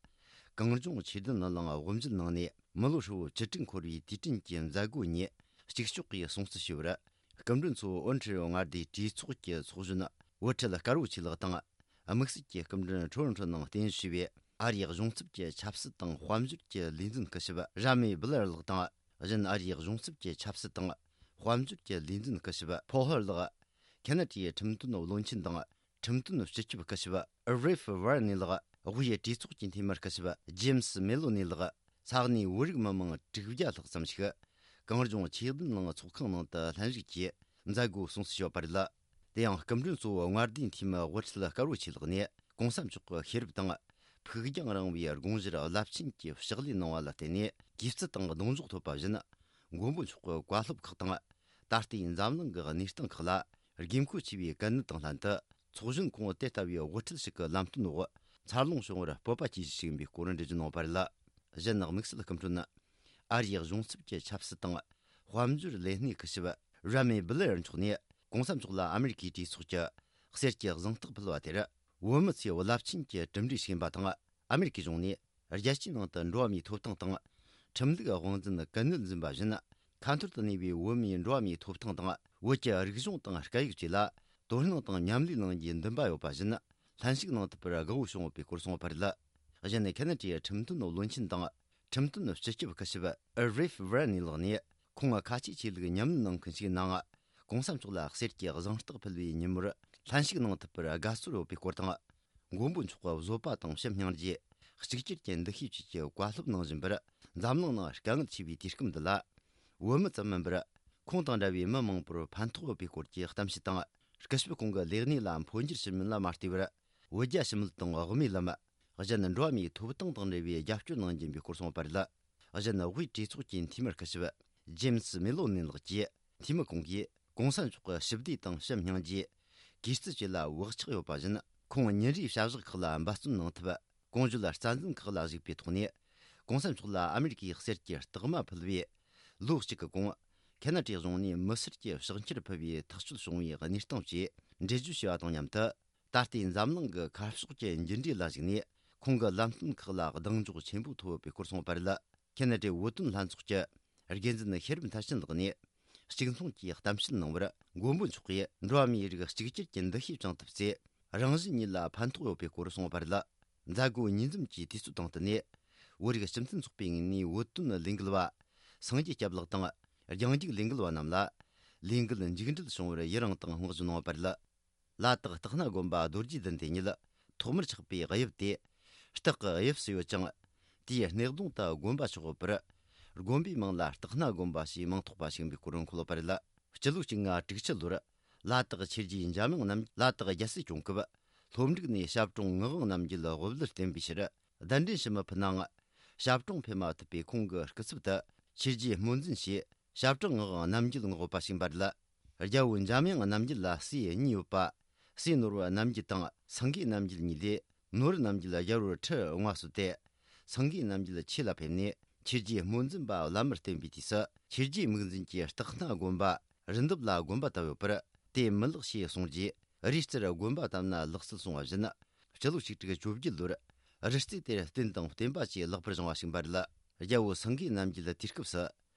གངས་ལྗོངས་ཆོས་ལྡན་གླིང་དབུ་མཛད་གནང་ནས། མི་ལོ་ཧྲིལ་བོ་བཅུ་དྲུག་འཁོར་བའི་དུས་དྲན་གྱི་མཛད་སྒོ་ཉིད་གཅིག་ལྕོགས་ཀྱིས་སྲུང་བརྩི་ཞུས་པར། སྐུ་མགྲོན་ཚོ་ཨོན་ཁྲི་ཡོ་མངའ་སྡེའི་གྲོས་ཚོགས་ཀྱི་ཚོགས་གཞོན་བུ་ཁྲིད་དཀར་བོ་ཆོས་ལགས་དང་། དམིགས་བསལ་གྱི་སྐུ་མགྲོན་ཁྲོ་ཁྲོ་ནང་རྟེན་གཞི་བྱས་པའི་ཨ་རིའི་གཞུང་ཚབ་ཀྱི་ཆབ་སྲིད་དང་དཔལ་འབྱོར་གྱི་ལས་འཛིན་སྐུ་ཞབས་ར་མེ་སྦི་ལར་ལགས་དང་། གཞན་ཨ་རིའི་གཞུང་ཚབ་ཀྱི་ཆབ་སྲིད་དང་དཔལ་འབྱོར་གྱི་ལས་འཛིན་སྐུ་ཞབས་ཕོ་ཧར་ལགས། ཁེ་ན་ཌའི་ཁྲིམས་དོན་བློན་ཆེན་དང་། ཁྲིམས་དོན་སྤྱི་ཁྱབ་སྐུ་ཞབས་རེ་ཧྥི་ཝར་ནི་ལགས། དབུས་གྲོས་ཚོགས་ཀྱི་འཐུས་མི་སྐུ་ཞབས་ཇེམ་སི་མེ་ལོ་ནི་ལགས། ས་གནས་བོད་རིགས་མི་མང་དྲུག་བརྒྱ་ལྷག་ཙམ་ཞིག་གངས་ལྗོངས་ཆོས་ལྡན་གླིང་ཚོགས་ཁང་ནང་དུ་ལྷན་ཞུགས་ཀྱིས་མཛད་སྒོ་སྲུང་བརྩི་ཞུས་པ་རེད། དེ་ཡང་སྐུ་མགྲོན་གཙོ་བོ་མངའ་སྡེའི་འཐུས་མི་དབུ་ཁྲིད་དཀར་བོ་ཆོས་ལགས་ནས་༸གོང་ས་མཆོག་གི་ཤེས་རབ་དང་། ཕུགས་རྒྱང་རིང་བའི་དགོངས་གཞིར་རླབས་ཆེན་གྱི་ཕྱག་ལས་གནང་བ་ལ་བརྟེན་ནས། གུས་བརྩི་དང་གདུང་འཇོག་ཐོབ་པ་བཞིན། མགོན་པོ་མཆོག་གི་བཀའ་སློབ་ཁག་དང་། ད་ལྟའི་འཛམ་གླིང་གི་གནས་སྟངས་ཁག་ལ་དགོས་མཁོ་ཆེ་བའི་གལ་གནད་དང་ལྷན་དུ། ཚོགས་གཞོན་ཁོང་དེ་ལྟ་བུའི་དབུ་ཁྲིད་ཞིག་གི་ལམ་སྟོན་འོག་འཚར་ལོངས་བྱུང་བར་སྤོབས་པ་སྐྱེ་གཞི་ཞིག་ཡིན་པའི་སྐོར་འགྲེལ་བརྗོད་གནང་བ་རེད། གཞན་དམིགས་བསལ་སྐུ་མགྲོན་ནི། ཨ་རིའི་གཞུང་ཚབ་ཀྱི་ཆབ་སྲིད་དང་། དཔལ་འབྱོར་ལས་སྣེ་སྐུ་ཞབས་ར་མེ་སྦི་ལེར་མཆོག་ནས། ༸གོང་ས་མཆོག་ལ་ཨ་མེ་རི་ཀའི་གྲོས་ཚོགས་ཀྱི་གསེར་གྱི་གཟེངས་རྟགས་ཕུལ་བ་དེར། བོད་མི་ཚོས་རླབས་ཆེན་གྱི་གྲུབ་འབྲས་ཤིག་ཡིན་པ་དང་། ཨ་མེ་རི་ཀའི་གཞུང་ནས་རྒྱལ་སྤྱིའི་ནང་དུ་འགྲོ་བ་མིའི་ཐོབ་ཐང་དང་། ཁྲིམས་ལུགས་དབང་འཛིན་གན་ནན་འཛིན་པ་བཞིན། ཁ་འཐོར་དུ་གནས་པའི་བོད་མིའི་འགྲོ་བ་མིའི་ཐོབ་ཐང་དང་། བོད་ཀྱི་རིག་གཞུང་དང་སྐད་ཡིག་བཅས་ལ་དོ་སྣང་དང་མཉམ་ལས་གནང་རྒྱུའི་འདུན་པ་ཡོད་པ་བཞིན། ལྷན་ཞུགས་གནང་ཐུབ་པར་དགའ་བོ་བྱུང་ཡོད་པའི་སྐོར་གསུངས་པ་རེད། གཞན་ནི། ཁེ་ན་ཌའི་ཁྲིམས་དོན་བློན་ཆེན་དང་། ཁྲིམས་དོན་སྤྱི་ཁྱབ་སྐུ་ཞབས་རེ་ཧྥི་ཝར་ནི་ལགས་ནས། ཁོང་ཁ་ཆེའི་ཆོས་ལུགས་ཉམས་ལེན་གནང་མཁན་ཞིག་ཡིན་ནའང་། ༸གོང་ས་མཆོག་ལ་གསེར་གྱི་གཟེངས་རྟགས་ཕུལ་བའི་ཉིན་མོར་ལྷན་ཞུགས་གནང་ཐུབ་པར་དགའ་ཚོར་ཡོད་པའི་སྐོར་དང་། མགོན་པོ་མཆོག་གི་བཟོད་པ་དང་ཕྱི་སྙིང་རྗེ། གཅིག་གྱུར་གྱི་འདུ་ཤེས་བཅས་ཀྱི་བཀའ་སློབ་གནང་བཞིན་པར། འཛམ་གླིང་ནང་དཀའ་ངལ་ཆེ་བའི་དུས་སྐབས་འདི་ལ། བོད་མི་ཙམ་མིན་པར། ཁོང་དང་འདྲ་བའི་མི་མང་པོར་ཕན་ཐོགས་ཡོད་པའི་སྐོར་གྱི་གཏམ་བཤད་དང་། སྐུ་ཞབས་ཁོང་གི་ལས་གནས་ལ་འཕོ་འགྱུར་ཕྱིན་མིན་ལ་མ་ལྟོས་པར། བོད་རྒྱ་ཞི་མོལ་དང་དབུ་མའི་ལམ། གཞན་འགྲོ་བ་མིའི་ཐོབ་ཐང་དང་འབྲེལ་བའི་རྒྱབ་སྐྱོར་གནང་རྒྱུ་ཡིན་པའི་སྐོར་གསུངས་པ་རེད། གཞན་དབུས་གྲོས་ཚོགས་ཀྱི་འཐུས་མི་སྐུ་ཞབས་ཇེམ་སི་མེ་ལོ་ནི་ལགས་ཀྱིས། འཐུས་མི་ཁོང་གིས་༸གོང་ས་མཆོག་གི་ཞི་བདེ་དང་ཕྱི་སྙིང་རྗེ། གུས་བརྩི་བཅས་ལ་བག་ཆགས་ཡོད་པ་བཞིན། ཁོང་ཉིན་རེའི་བྱ་གཞག་ཁག་ལ་འབད་བརྩོན་གནང་ཐབས། གོང་བརྗོད་རྩ་འཛིན་ཁག་ལ་གཞིགས་པའི་ཐོག་ནས། ༸གོང་ས་མཆོག་ལ་ཨ་མེ་རི་ཀའི་གསེར་གྱི་རྟགས་མ་ཕུལ་བས། ལོ་གཅིག་གི་གོང་། ཁེ་ན་ཌའི་གཞུང་ནས་མི་སེར་གྱི་ཕྱག་འཁྱེར་ཕུལ་བའི་ཐག་གཅོད་བྱུང་བའི་གནས་སྟངས་བཅས་འགྲེལ་བརྗོད་བྱས་པ་དང་མཉམ་དུ། ད་ལྟའི་འཛམ་གླིང་གི་ཁ་ཕྱོགས་ཀྱི་འགྱུར་འགྲོས་ལ་གཞིགས་ནས། ཁོང་གི་ལམ་སྟོན་ཁག་ལ་གདེང་འཇོག་ཆེན་པོ་ཐོབ་ཡོད་པའི་སྐོར་གསུངས་པ་རེད། ཁེ་ན་ཌའི་བོད་དོན་ལྷན་ཚོགས་ཀྱི་འགན་འཛིན་ཤེས་རབ་མཐར་ཕྱིན་ལགས་ནས། གཅིག་མཚུངས་ཀྱིས་གཏམ་བཤད་གནང་བར། མགོན་པོ་མཆོག་གིས་འགྲོ་བ་མིའི་རིགས་གཅིག་གྱུར་གྱི་འདུ་ཤེས་བཅངས་ཐབས་ཚེ། རང་གཞན་གཉིས་ལ་ཕན་ཐོགས་ཡོད་པའི་སྐོར་གསུངས་པ་རེད། མཛད་སྒོ་ཉིན་མཚམས་ཀྱི་དུས་ཚོད་དང་བསྟུན་ནས། བོད་རིགས་སྤྱི་མཐུན་ཚོགས་པའི་ངོས་ནས་བོད་དོན་ལས་འགུལ་བ། སངས་རྒྱས་སྐྱབས་ལགས་དང་། རྒྱང་རྒྱུག་ལས་འགུལ་བ་རྣམས་ལ། ལས་འགུལ་མཇུག་འགྲིལ་བྱུང་བར་ཡི་རང་དང་བསྔགས་བརྗོད་གནང་བ་རེད། ལ་དྭགས་སྟག་སྣ་དགོན་པ་རྡོ་རྗེ་གདན་དེ་ཉིད། ཐོག་མར་ཆགས་པའི་དབྱིབས་དེ། སྟག་གི་དབྱིབས་སུ་ཡོད་ཅིང་། དེའི་སྣེ་གདོང་དུ་དགོན་པ་ཆགས་ཡོད་པར། དགོན་པའི་མིང་ལ་སྟག་སྣ་དགོན་པ་ཞེས་མིང་ཐོགས་པ་ཞིག་ཡིན་པའི་སྐོར་འཁོད་ཡོད་པ་རེད། སྤྱི་ལོ་གཅིག་ལྔ་དྲུག་ཅུ་ལོར། ལ་དྭགས་ཆོས་རྗེ་འཇམ་དབྱངས་རྣམ། ལ་དྭགས་རྒྱལ་སྲིད་སྐྱོང་སྐབས། ལྷོ་འབྲུག་ནས་ཞབས་དྲུང་ངག་དབང་རྣམ་རྒྱལ་དབུ་བླར་བསྟེན་པའི་ཕྱིར། གདན་འདྲེན་ཞུ་མི་ཕུད་ནའང་། ཞབས་དྲུང་ཕེབས་མ་ཐུབ་པས། ཁོང་གི་སྐུ་ཚབ་ཏུ་ཆོས་རྗེ་སྨོན་འཛིན་ཞེས། ཞབས་དྲུང་ངག་དབང་རྣམ་རྒྱལ་མངགས་པ་ཞིག་ཡིན་པ་རེད། རྒྱལ་པོ་འཇམ་དབྱངས་རྣམ་རྒྱལ་ལ་སྲས་གཉིས་ཡོད་པ། སྲས་ནོར་བུ་རྣམ་རྒྱལ་དང་སེང་གེ་རྣམ་རྒྱལ་གཉིས་ལས། ནོར་བུ་རྣམ་རྒྱལ་རྒྱལ་པོར་ཁྲི་དབང་བ་གསོལ་ཏེ། སེང་གེ་རྣམ་རྒྱལ་ཆོས་ལ་ཕེབས་ནས་ཆོས་རྗེ་སྨོན་འཛིན་པ་བླ་མར་བསྟེན་པའི་དུས་སུ། ཆོས་རྗེ་མིག་འཛིན་གྱིས་སྟག་སྣ་དགོན་པ་རི་འདབས་ལ་དགོན་པ་བཏབ་ཡོད་པར། དེ་མི་ལེགས་ཞེས་གསུངས་རྗེས། རིའི་རྩེར་དགོན་པ་བཏབ་ན་ལེགས་སྲིད་གསུང་བ་བཞིན། སྤྱི་ལོ་ཆིག་ཁྲི་བཅོ་བརྒྱད་ལོར། རི་རྩེ་དེར་རྟེན་དང་བརྟེན་པ་བཅས་ལེགས་པར་བཞེངས་པ་ཞིག་ཡིན་པ་རེད། རྒྱལ་པོ་སེང་གེ་རྣམ་རྒྱལ་དུས་སྐབས་སུ།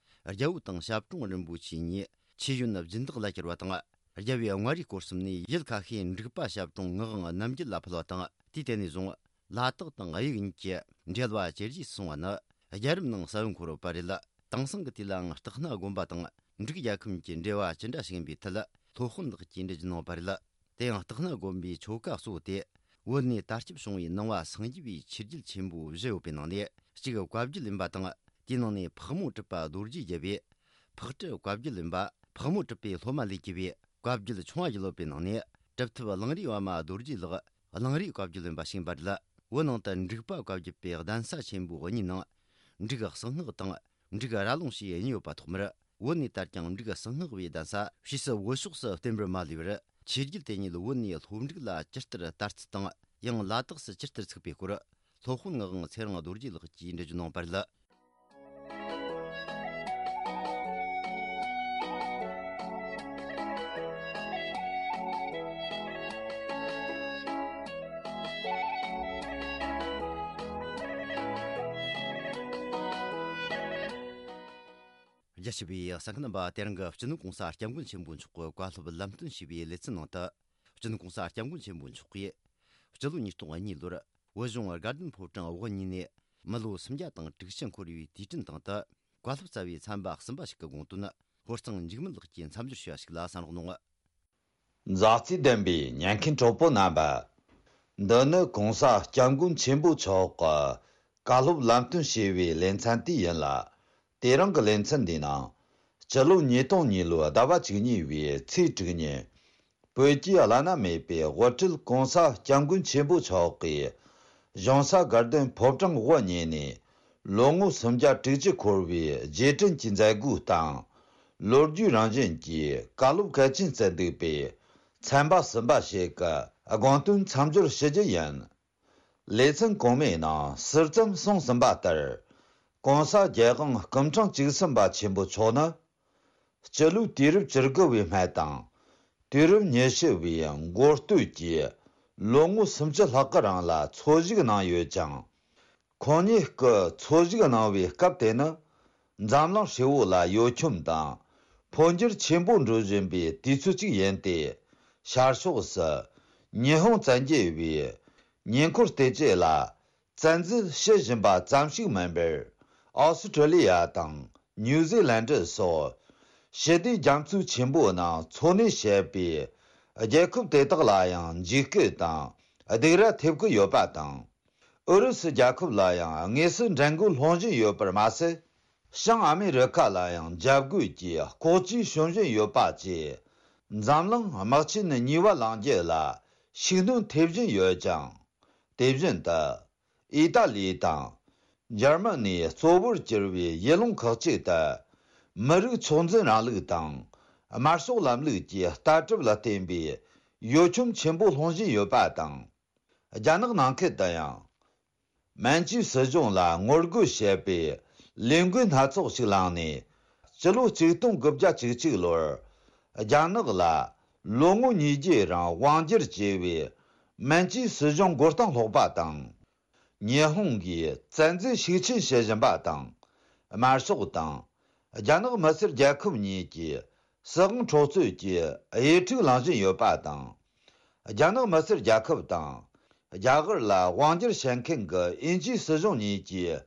རྒྱལ་པོ་དང་ཞབས་དྲུང་རིན་པོ་ཆེ་གཉིས་ཆོས་ཡོན་སྦྱིན་བདག་ལ་གྱུར་བ་དང་། རྒྱལ་པོའི་མངའ་རིས་སྐོར་གསུམ་ནས་ཡུལ་ཁ་ཤས་འབྲུག་པ་ཞབས་དྲུང་ངག་དབང་རྣམ་རྒྱལ་ལ་ཕུལ་བ་དང་། དུས་དེ་ནས་བཟུང་ལ་དྭགས་དང་དབྱིག་གཉིས་ཀྱི་འབྲེལ་བ་ཇེ་རྒྱས་སུ་སོང་བ་ནི་རྒྱལ་རབས་ནང་གསལ་བོ་འཁོད་ཡོད་པ་རེད། དེང་སང་གི་དུས་ལའང་སྟག་སྣ་དགོན་པ་དང་འབྲུག་རྒྱལ་ཁམས་ཀྱི་འབྲེལ་བ་ཅི་འདྲ་ཞིག་ཡིན་པའི་ཐད་སློབ་དཔོན་དག་གིས་འགྲེལ་བརྗོད་གནང་བ་རེད། དེ་ཡང་སྟག་སྣ་དགོན་པའི་ཆོ་ག་གཙོ་བོ་དེ། བོད་ནས་དར་ཁྱབ་བྱུང་བའི་ནང་པ་སངས་རྒྱས་པའི་ཆོས་བརྒྱུད་ཆེན་པོ་བཞི་ཡོད་པའི་ནང་ནས་གཅིག་བཀའ་བརྒྱུད་ཡིན་པ་དང་། དེའི་ནང་ནས་ཕག་མོ་གྲུ་པ་རྡོ་རྗེ་རྒྱལ་པོས་ཕག་གྲུ་བཀའ་བརྒྱུད་ཡིན་པ། ཕག་མོ་གྲུ་པའི་སློབ་མ་ལས་གྱུར་པའི་བཀའ་བརྒྱུད་ཆུང་བ་བརྒྱུད་ཡོད་པའི་ནང་ནས། གྲུབ་ཐོབ་གླང་རིའི་པདྨ་རྡོ་རྗེ་ལགས་གླང་རིའི་བཀའ་བརྒྱུད་ཡིན་པ་ཞིག་ཡིན་པ་རེད། བོད་ནང་དུ་འབྲུག་པ་བཀའ་བརྒྱུད་པའི་གདན་ས་ཆེན་པོ་གཉིས་ནང་། འབྲུག་གསང་སྔགས་དང་འབྲུག་ར་ལུང་ཞེས་གཉིས་ཡོད་པ་ཐོག་མར། བོད་ནས་དར་ཀྱང་འབྲུག་གསང་སྔགས་བའི་གདན་ས་ཕྱིས་སུ་བོད་ཕྱོགས་སུ་བསྟན་པར་མ་ལུས་པར། ཆོས་བརྒྱུད་དེ་ཉིད་བོད་ནས་ལྷོ་འབྲུག་ལ་ཇི་ལྟར་དར་ཚུལ་དང་། ཡང་ལ་དྭགས་སུ་ཇི་ལྟར་ཚུགས་པའི་སྐོར། སློབ་དཔོན་ངག་དབང་ཚེ་རིང་རྡོ་རྗེ་ལགས་ཀྱིས་འགྲེལ་བརྗོད་གནང་བ་རེད། རྒྱ་ཆེ་བའི་གསན་མཁན་རྣམ་པ། དེ་རིང་གི་སྤྱི་ནོར་༸གོང་ས་༸སྐྱབས་མགོན་ཆེན་པོ་མཆོག་གི་བཀའ་སློབ་ལམ་སྟོན་ཞུས་པའི་ལེ་ཚན་ནང་དུ། སྤྱི་ནོར་༸གོང་ས་༸སྐྱབས་མགོན་ཆེན་པོ་མཆོག་གིས། སྤྱི་ལོ་ཉིས་སྟོང་གཉིས་ལོར། བོད་གཞུང་དགའ་ལྡན་ཕོ་བྲང་དབུ་བརྙེས་ནས། མི་ལོ་སུམ་བརྒྱ་དང་དྲུག་ཅུ་འཁོར་བའི་དུས་དྲན་སྟེང་དུ། བཀའ་སློབ་སྩལ་བའི་ཚན་པ་གསུམ་པ་ཞིག་གི་དགོངས་དོན། ཧོར་གཙང་འཇིགས་མེད་ལགས་ཀྱིས་མཚམས་སྦྱོར་ཞུས་པ་ཞིག་ལ་གསན་རོགས་གནང་། མཛའ་བརྩེ་ལྡན་པའི་ཉན་མཁན་གྲོགས་པོ་རྣམ་པ། འདི་ནི་༸གོང་ས་༸སྐྱབས་མགོན་ཆེན་པོ་མཆོག་གི་བཀའ་སློབ་ལམ་སྟོན་ཞུས་པའི་ལེ་ཚན་དེ་ཡིན་ལ། དེ་རིང་གི་ལེ་ཚན་འདིའི་ནང་། སྤྱི་ལོ་ཉིས་སྟོང་གཉིས་ལོའི་ཟླ་བ་བཅུ་གཉིས་པའི་ཚེས་དྲུག་ཉིན། བོད་ཀྱི་བླ་ན་མེད་པའི་དབུ་ཁྲིད་༸གོང་ས་༸སྐྱབས་མགོན་ཆེན་པོ་མཆོག་གིས། གཞུང་ས་དགའ་ལྡན་ཕོ་བྲང་དབུ་བརྙེས་ནས། ལོ་ངོ་སུམ་བརྒྱ་དྲུག་ཅུ་འཁོར་བའི་རྗེས་དྲན་གྱི་མཛད་སྒོའི་སྟེང་། ལོ་རྒྱུས་རང་བཞིན་གྱི་བཀའ་སློབ་གལ་ཆེན་སྩལ་འདུག་པས། ཚན་པ་གསུམ་པ་ཞིག་གི་དགོངས་དོན་མཚམས་སྦྱོར་ཞུ་རྒྱུ་ཡིན། ལེ་ཚན་གོང་མའི་ནང་ཟུར་ཙམ་གསུངས་ཟིན་པ་ལྟར། ༸གོང་ས་༸རྒྱལ་དབང་སྐུ་ཕྲེང་བཅུ་གསུམ་པ་ཆེན་པོ་མཆོག་ནི། སྤྱི་ལོའི་དུས་རབས་བཅུ་དགུ་བའི་སྨད་དང་། དུས་རབས་ཉི་ཤུ་བའི་མགོ་སྟོད་ཀྱི་ལོ་ངོ་སུམ་ཅུ་ལྷག་གི་རིང་ལ་འཚོ་བཞུགས་གནང་ཡོད་ཅིང་། ཁོང་ཉིད་ཀྱི་འཚོ་བཞུགས་གནང་བའི་སྐབས་དེ་ནི། འཛམ་གླིང་ཧྲིལ་བོ་ལ་གཡོ་འཁྱོམ་དང་། འཕོ་འགྱུར་ཆེན་པོ་འགྲོ་བཞིན་པའི་དུས་ཚོད་ཅིག་ཡིན་ཏེ། ཤར་ཕྱོགས་སུ་ཉི་ཧོང་བཙན་རྒྱལ་བའི་ཉེ་འཁོར་སྟོབས་ཆེ་ལ་བཙན་འཛུལ་བྱེད་བཞིན་པ་ཙམ་ཞིག་མིན་པར། ཨོ་སི་ཁྲི་ལི་ཡ་དང་ནིའུ་ཛི་ལན་ཌི་སོགས་ཞི་བདེ་རྒྱ་མཚོ་ཆེན་པོའི་ནང་འཚོ་གནས་བྱེད་པའི་རྒྱལ་ཁབ་དེ་དག་ལ་ཡང་འཇིགས་སྐུལ་དང་སྡིགས་ར་ཐེབས་ཀྱི་ཡོད་པ་དང་། ཨུ་རུ་སུ་རྒྱལ་ཁབ་ལ་ཡང་དངོས་སུ་འགྲན་རྒོལ་སློང་བཞིན་ཡོད་པར་མ་ཟད། བྱང་ཨ་མི་རི་ཁ་ལ་ཡང་འཇབ་རྒོལ་གྱི་ལྐོག་ཇུས་བྱུང་བཞིན་ཡོད་པ་བཅས། འཛམ་གླིང་དམག་ཆེན་གཉིས་པ་ལངས་རྒྱུ་ལ་ཤུགས་སྣོན་ཐེབས་བཞིན་ཡོད་ཅིང་། དེ་བཞིན་དུ། ཨི་ཏཱ་ལི་དང་། འཇར་མ་ནི་གཙོ་བོར་གྱུར་བའི་ཡུལ་ལུང་ཁག་ཅིག་ཏུ། མི་རིགས་ཚོགས་འཛིན་རིང་ལུགས་དང་། དམར་ཤོག་ལམ་ལུགས་ཀྱི་ལྟ་གྲུབ་ལ་བརྟེན་པའི་གཡོ་འཁྱོམ་ཆེན་པོ་སློང་བཞིན་ཡོད་པ་དང་། རྒྱ་ནག་ནང་ཁུལ་དུ་ཡང་། མན་ཇུའི་སྲིད་གཞུང་ལ་ངོ་རྒོལ་བྱེད་པའི་ལས་འགུལ་སྣ་ཚོགས་ཤིག་བསླངས་ནས། སྤྱི་ལོ་ཆིག་སྟོང་དགུ་བརྒྱ་བཅུ་གཅིག་ལོར། རྒྱ་ནག་ལ་ལོ་ངོ་ཉིས་བརྒྱའི་རིང་དབང་སྒྱུར་བྱས་པའི་མན་ཇུའི་སྲིད་གཞུང་མགོ་རྟིང་སློག་པ་དང་། ཉི་ཧོང་གིས་བཙན་འཛུལ་ཤུགས་ཆེན་བྱེད་བཞིན་པ་དང་། དམར་ཤོག་དང་། རྒྱ་ནག་མི་སེར་རྒྱལ་ཁབ་གཉིས་ཀྱིས་སྲིད་དབང་འཕྲོག་རྩོད་ཀྱི་དབྱེ་ཕྲུག་ལངས་བཞིན་ཡོད་པ་དང་། རྒྱ་ནག་མི་སེར་རྒྱལ་ཁབ་དང་། རྒྱ་གར་ལ་དབང་སྒྱུར་བྱེད་མཁན་གྱི་དབྱིན་ཇིའི་སྲིད་གཞུང་གཉིས་ཀྱིས།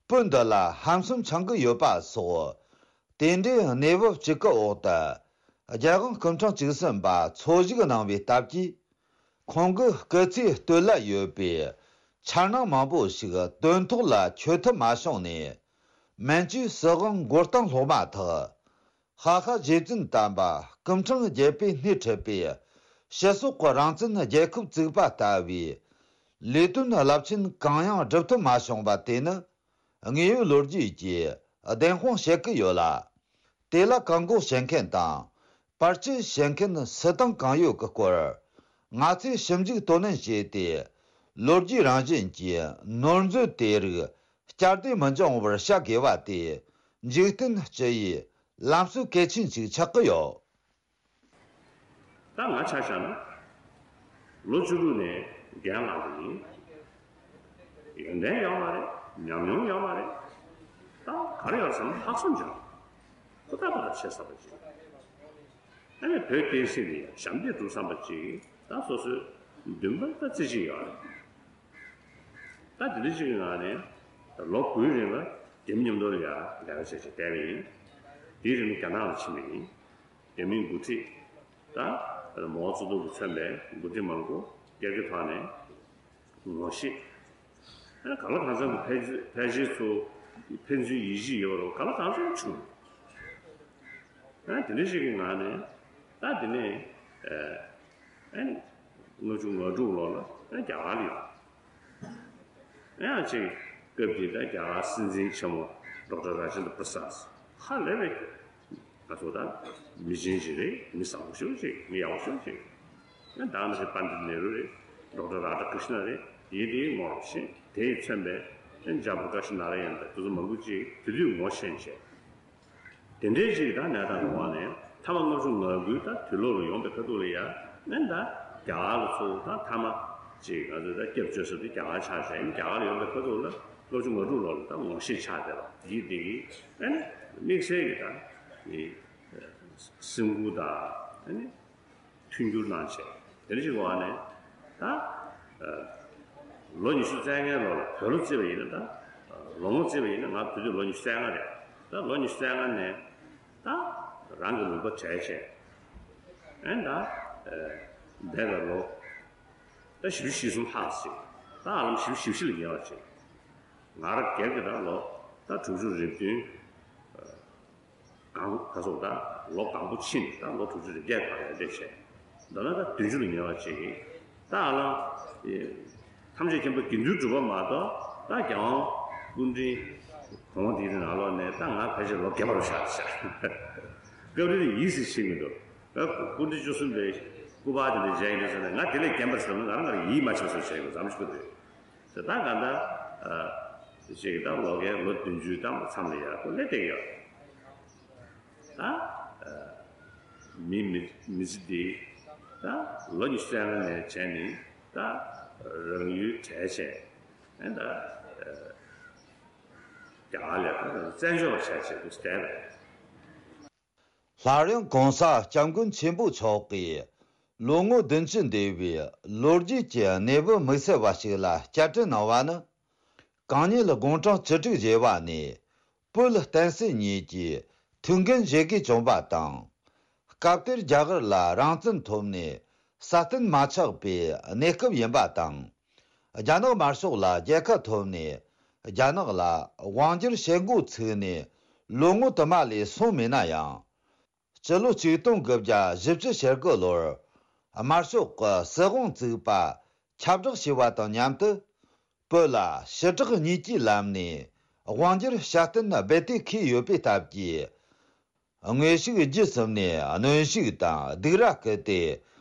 བོད་འདི་ལ་ཧམ་སེམས་འཆང་གི་ཡོད་པ་སོགས། དེ་འདྲའི་གནས་བབ་གཅིག་གི་འོག་ཏུ། རྒྱལ་དབང་སྐུ་ཕྲེང་བཅུ་གསུམ་པ་འཚོ་བཞུགས་གནང་བའི་སྟབས་ཀྱིས། ཁོང་གི་སྐུ་ཚེའི་སྟོད་ལ་ཡོད་པའི་འཆར་སྣང་མང་པོ་ཞིག་དོན་ཐོག་ལ་འཁྱོལ་ཐུབ་མ་བྱུང་ནས། མན་ཇུའི་སྲིད་དབང་མགོ་རྟིང་སློག་མ་ཐག་ཧ་ཧ་རྗེ་བཙུན་དམ་པ་སྐུ་ཕྲེང་བརྒྱད་པས་སྣེ་ཁྲིད་པའི་སྤྱི་ཚོགས་ཀྱི་རང་བཙན་རྒྱལ་ཁབ་བཙུགས་པ་ལྟ་བུའི་ལས་དོན་རླབས་ཆེན་གང་ཡང་སྒྲུབ་ཐུབ་མ་བྱུང་བ་དེ་ནི། དངོས་ཡོད་ལོ་རྒྱུས་ཀྱིས་བདེན་དཔང་བྱེད་ཀྱི་ཡོད་ལ། དེ་ལ་བཀག་འགོག་བྱེད་མཁན་དང་། བར་ཆད་བྱེད་མཁན་སུ་དང་གང་ཡོད་ཀྱི་སྐོར། ང་ཚོས་ཞིབ་འཇུག་དོ་ནན་བྱས་ཏེ། ལོ་རྒྱུས་རང་བཞིན་གྱི་ནོར་འཛོལ་དེ་རིགས་བསྐྱར་ཟློས་མི་འབྱུང་བར་བྱ་དགོས་པ་དེ། འཇིག་རྟེན་སྤྱི་ཡི་ལམ་སྲོལ་གལ་ཆེན་ཞིག་ཆགས་ཀྱི་ཡོད། ད་ང་ཆ་བཞག་ན། ལོ་བཅུ་དྲུག་ནས་རྒན་ལངས་པ་ཡིན། ཡོན་ཏན་ཡོད་མ་རེད། ཉམས་མྱོང་ཡོད་མ་རེད། ད་ག་རེ་ཡོད་བསམ་ན་ལྷག་བསམ་ཅིག་ཁོ་ཐག་ཐག་ཆོད་བསམ་པ་ཅིག་ཨ་ནི་བོད་བསྟན་སྲིད་ལ་ཞབས་འདེགས་སྒྲུབ་བསམ་པ་ཅིག་ད་སོ་སོའི་འདུན་པ་ད་རྩེ་གཅིག་ཡོད་རེད། ད་དེ་འདྲ་ཅིག་གི་ངང་ནས་ད་ལོ་དགུའི་རིང་ལ་རྒན་མཉམ་དུ་ལ་ཡ་ལས་ཀ་བྱས་བྱས་བསྡད་པ་ཡིན། དེའི་རིང་ལ་རྒྱ་ནག་ལ་ཕྱིན་པ་ཡིན། རྒྱ་མིའི་འགོ་ཁྲིད་དང་མའོ་ཙེ་ཏུང་གིས་མཚོན་པའི་འགོ་ཁྲིད་མང་པོ་སྒེར་གྱི་ཐོག་ནས་ངོ་ཤེས། ཨ་ནི་གང་ལ་གང་འཚམ་གྱི་ཕལ་ཕལ་ཆེར་ཚོ་ཕན་ཚུན་ཡིད་ཆེས་ཡོད་རུང་གང་ལ་གང་འཚམ་བྱུང་། ཨ་ནི་དེ་འདྲ་ཞིག་གི་ངང་ནས་ད་དེ་ནས་ཨ་ནི་ལྔ་བཅུ་ང་དྲུག་ལོ་ལ་ཨ་ནི་རྒྱ་གར་ལ་ཡོང་། ཡང་ཅིག་སྐབས་དེ་ད་རྒྱ་གར་སྲིད་འཛིན་ཆེན་མོ་ཌོག་ཊར་ར་ཇེན་དྲ་པྲ་སཱད་ཧ་ལས་པའི་ ང་ཚོ་ད་མི་ཆེན་ཞིག་རེད། མི་བཟང་པོ་ཞིག་རེད། མི་ཡག་པོ་ཞིག་རེད། ཨ་ད་ནི་པཎྜི་ཏ་ནེ་རུ་རེད། ཌོག་ཊར་རཱ་དྷ་ཀྲིཤ་ན་རེད། ཡིན་དེའི་ངོ་ཤེས་དེས་མཚོན་པའི་ཨ་ཇ་པྲ་ཀ་ཤི་ནཱ་ར་ཡན་དང་དེ་ཚོ་མང་པོ་ཅིག་དེ་དུས་ངོ་ཤེས་བྱས། དེ་འདྲའི་ཅིག་ད་གནས་སྟངས་རུ་བ་ནས་ཐ་མ་ལྔ་བཅུ་ང་དགུའི་ད་དུས་ལོ་རུ་ཡོང་པའི་ཁ་ཐུག་ལ་ཡ་ནན་ད་རྒྱ་གར་ལ་ཚུར་ད་ཐ་མ་ཅིག་ང་ཚོས་ད་སྐྱབས་བཅོལ་ས་དེ་རྒྱ་གར་ཆགས་བྱས། རྒྱ་གར་ལ་ཡོང་པའི་ཁ་ཐུག་ལ་ལྔ་བཅུ་ང་དྲུག་ལོ་ལ་ད་ངོ་ཤེས་ཆགས་བསྡད་པ་ཡིན་དེ་གི་ཨ་ནི་དམིགས་བསལ་གྱི་ད་ནི་སེམས་ཁུར་དང་ཨ་ནི། མཐུན་འགྱུར་གནང་བྱས། དེ་འདྲ་ཞིག་བ་ནས་ད་ལོ་ཉི་ཤུ་རྩ་ལྔའི་ལོ་ལ་བོད་ལོ་བརྩིས་པ་ཡིན་ན། ད་ལོ་ངོ་བརྩིས་པ་ཡིན་ན་ང་དུས་ཚོད་ལོ་ཉི་ཤུ་རྩ་ལྔ་རེད། ད་ལོ་ཉི་ཤུ་རྩ་ལྔ་ནས་ད་རང་གི་ལུང་པ་བྲལ་བྱས། ཨེ་ད་འདས་པའི་ལོ་ད་བཞི་བཅུ་ཞེ་གསུམ་ལྷག་ཅིག་ད་ཧ་ལམ་བཞི་བཅུ་ཞེ་བཞི་ལ་ཉེ་བ་ཅིག་ང་རང་སྒེར་གྱི་ད་ལོ་ད་དྲུག་ཅུ་རེ་བདུན། གང་ག་སོགས་ད་ལོ་གང་པོ་ཕྱིན་ད་ལོ་དྲུག་ཅུ་རེ་བརྒྱད་བར་ཡར་འདེད་བྱས། མདོར་ན་ད་བདུན་ཅུ་ལ་ཉེ་བ་ཅིག་གིས་ད་ཨ་ལ། ཐམས་ཅད་མཁྱེན་པ་དགེ་འདུན་གྲུབ་པ་མ་གཏོགས་ད་རྒྱལ་དབང་སྐུ་ཕྲེང་གོང་འདིའི་ནང་ལོགས་ནས་ད་ང་ཕལ་ཆེར་ལོ་བརྒྱད་པ་རུ་ཆགས་ཤག་སྐབས་རེ་ནས་ཡིད་སེམས་ཆེས་མི་འདུག་ད་སྐུ་ཕྲེང་བཅུ་གསུམ་པའི་སྐུ་པར་དེ་འདྲ་མཇལ་ཡིན་དུས་ཙམ་ནས་ང་དེ་ལས་རྒན་པ་ཟེར་ན་ང་རང་ང་རང་ཡིད་མ་ཆེས་བཟོ་བྱས་ཡོད་མཚམས་ཤིག་འདུག་དེ་ད་ག་ད། ཅིག་ད་ལོ་རྒན་ལོ་བདུན་ཅུའི་ད་མཚམས་ལ་ཡར་ཁོ་སླེབས་བསྡད་ཡོད། ད་མི་མི་མི་ཚེ་འདི་ད་ལོ་ཉི་ཤུ་རྩ་ལྔ་ནས་བྱས་ནས་ད་རང་ཡུལ་བྲལ་བྱས་ཨ་ད་རྒྱ་གར་ལ་ད་བཙན་བྱོལ་བ་བྱས་བྱས་དུས་བསྡད་པས། སླར་ཡང་གོང་ས་སྐྱབས་མགོན་ཆེན་པོ་མཆོག་གིས་ལོ་ངོ་བདུན་ཅུ་འདས་པའི་ལོ་རྒྱུས་ཀྱི་གནས་བབ་དམིགས་བསལ་བ་ཞིག་ལ་བསྐྱར་དྲི་གནང་བ་ནི། གང་ཉིད་དགུང་གྲངས་བཅུ་དྲུག་བཞེས་པ་ནས་བོད་བསྟན་སྲིད་གཉིས་ཀྱི་ཐུགས་འགན་བཞེས་དགོས་བྱུང་བ་དང་། སྐབས་དེར་རྒྱ་གར་ལ་རང་བཙན་ཐོབ་ནས་སྲ་བརྟན་མ་ཆགས་པའི་གནས་སྐབས་ཡིན་པ་དང་། རྒྱ་ནག་དམར་ཤོག་ལ་རྒྱལ་ཁ་ཐོབ་ནས་རྒྱ་ནག་ལ་དབང་སྒྱུར་བྱེད་འགོ་ཚུགས་ནས་ལོ་ངོ་དུ་མ་ལས་སོང་མེད་ན་ཡང་། སྤྱི་ལོ་ཆིག་སྟོང་དགུ་བརྒྱ་བཞི་བཅུ་ཞེ་དགུ་ལོར་དམར་ཤོག་གི་སྲིད་དབང་བཙུགས་པ་ཁྱབ་བསྒྲགས་བྱས་པ་དང་མཉམ་དུ། བོད་ལ་ཞི་དྲག་གཉིས་ཀྱི་ལམ་ནས་དབང་སྒྱུར་སྲ་བརྟན་རྦད་དེ་ཁེལ་ཡོད་པའི་སྟབས་ཀྱིས། དངོས་ཤུགས་བརྒྱུད་གསུམ་ནས་གནོན་ཤུགས་དང་སྡིགས་ར་བསྐུལ་ཏེ།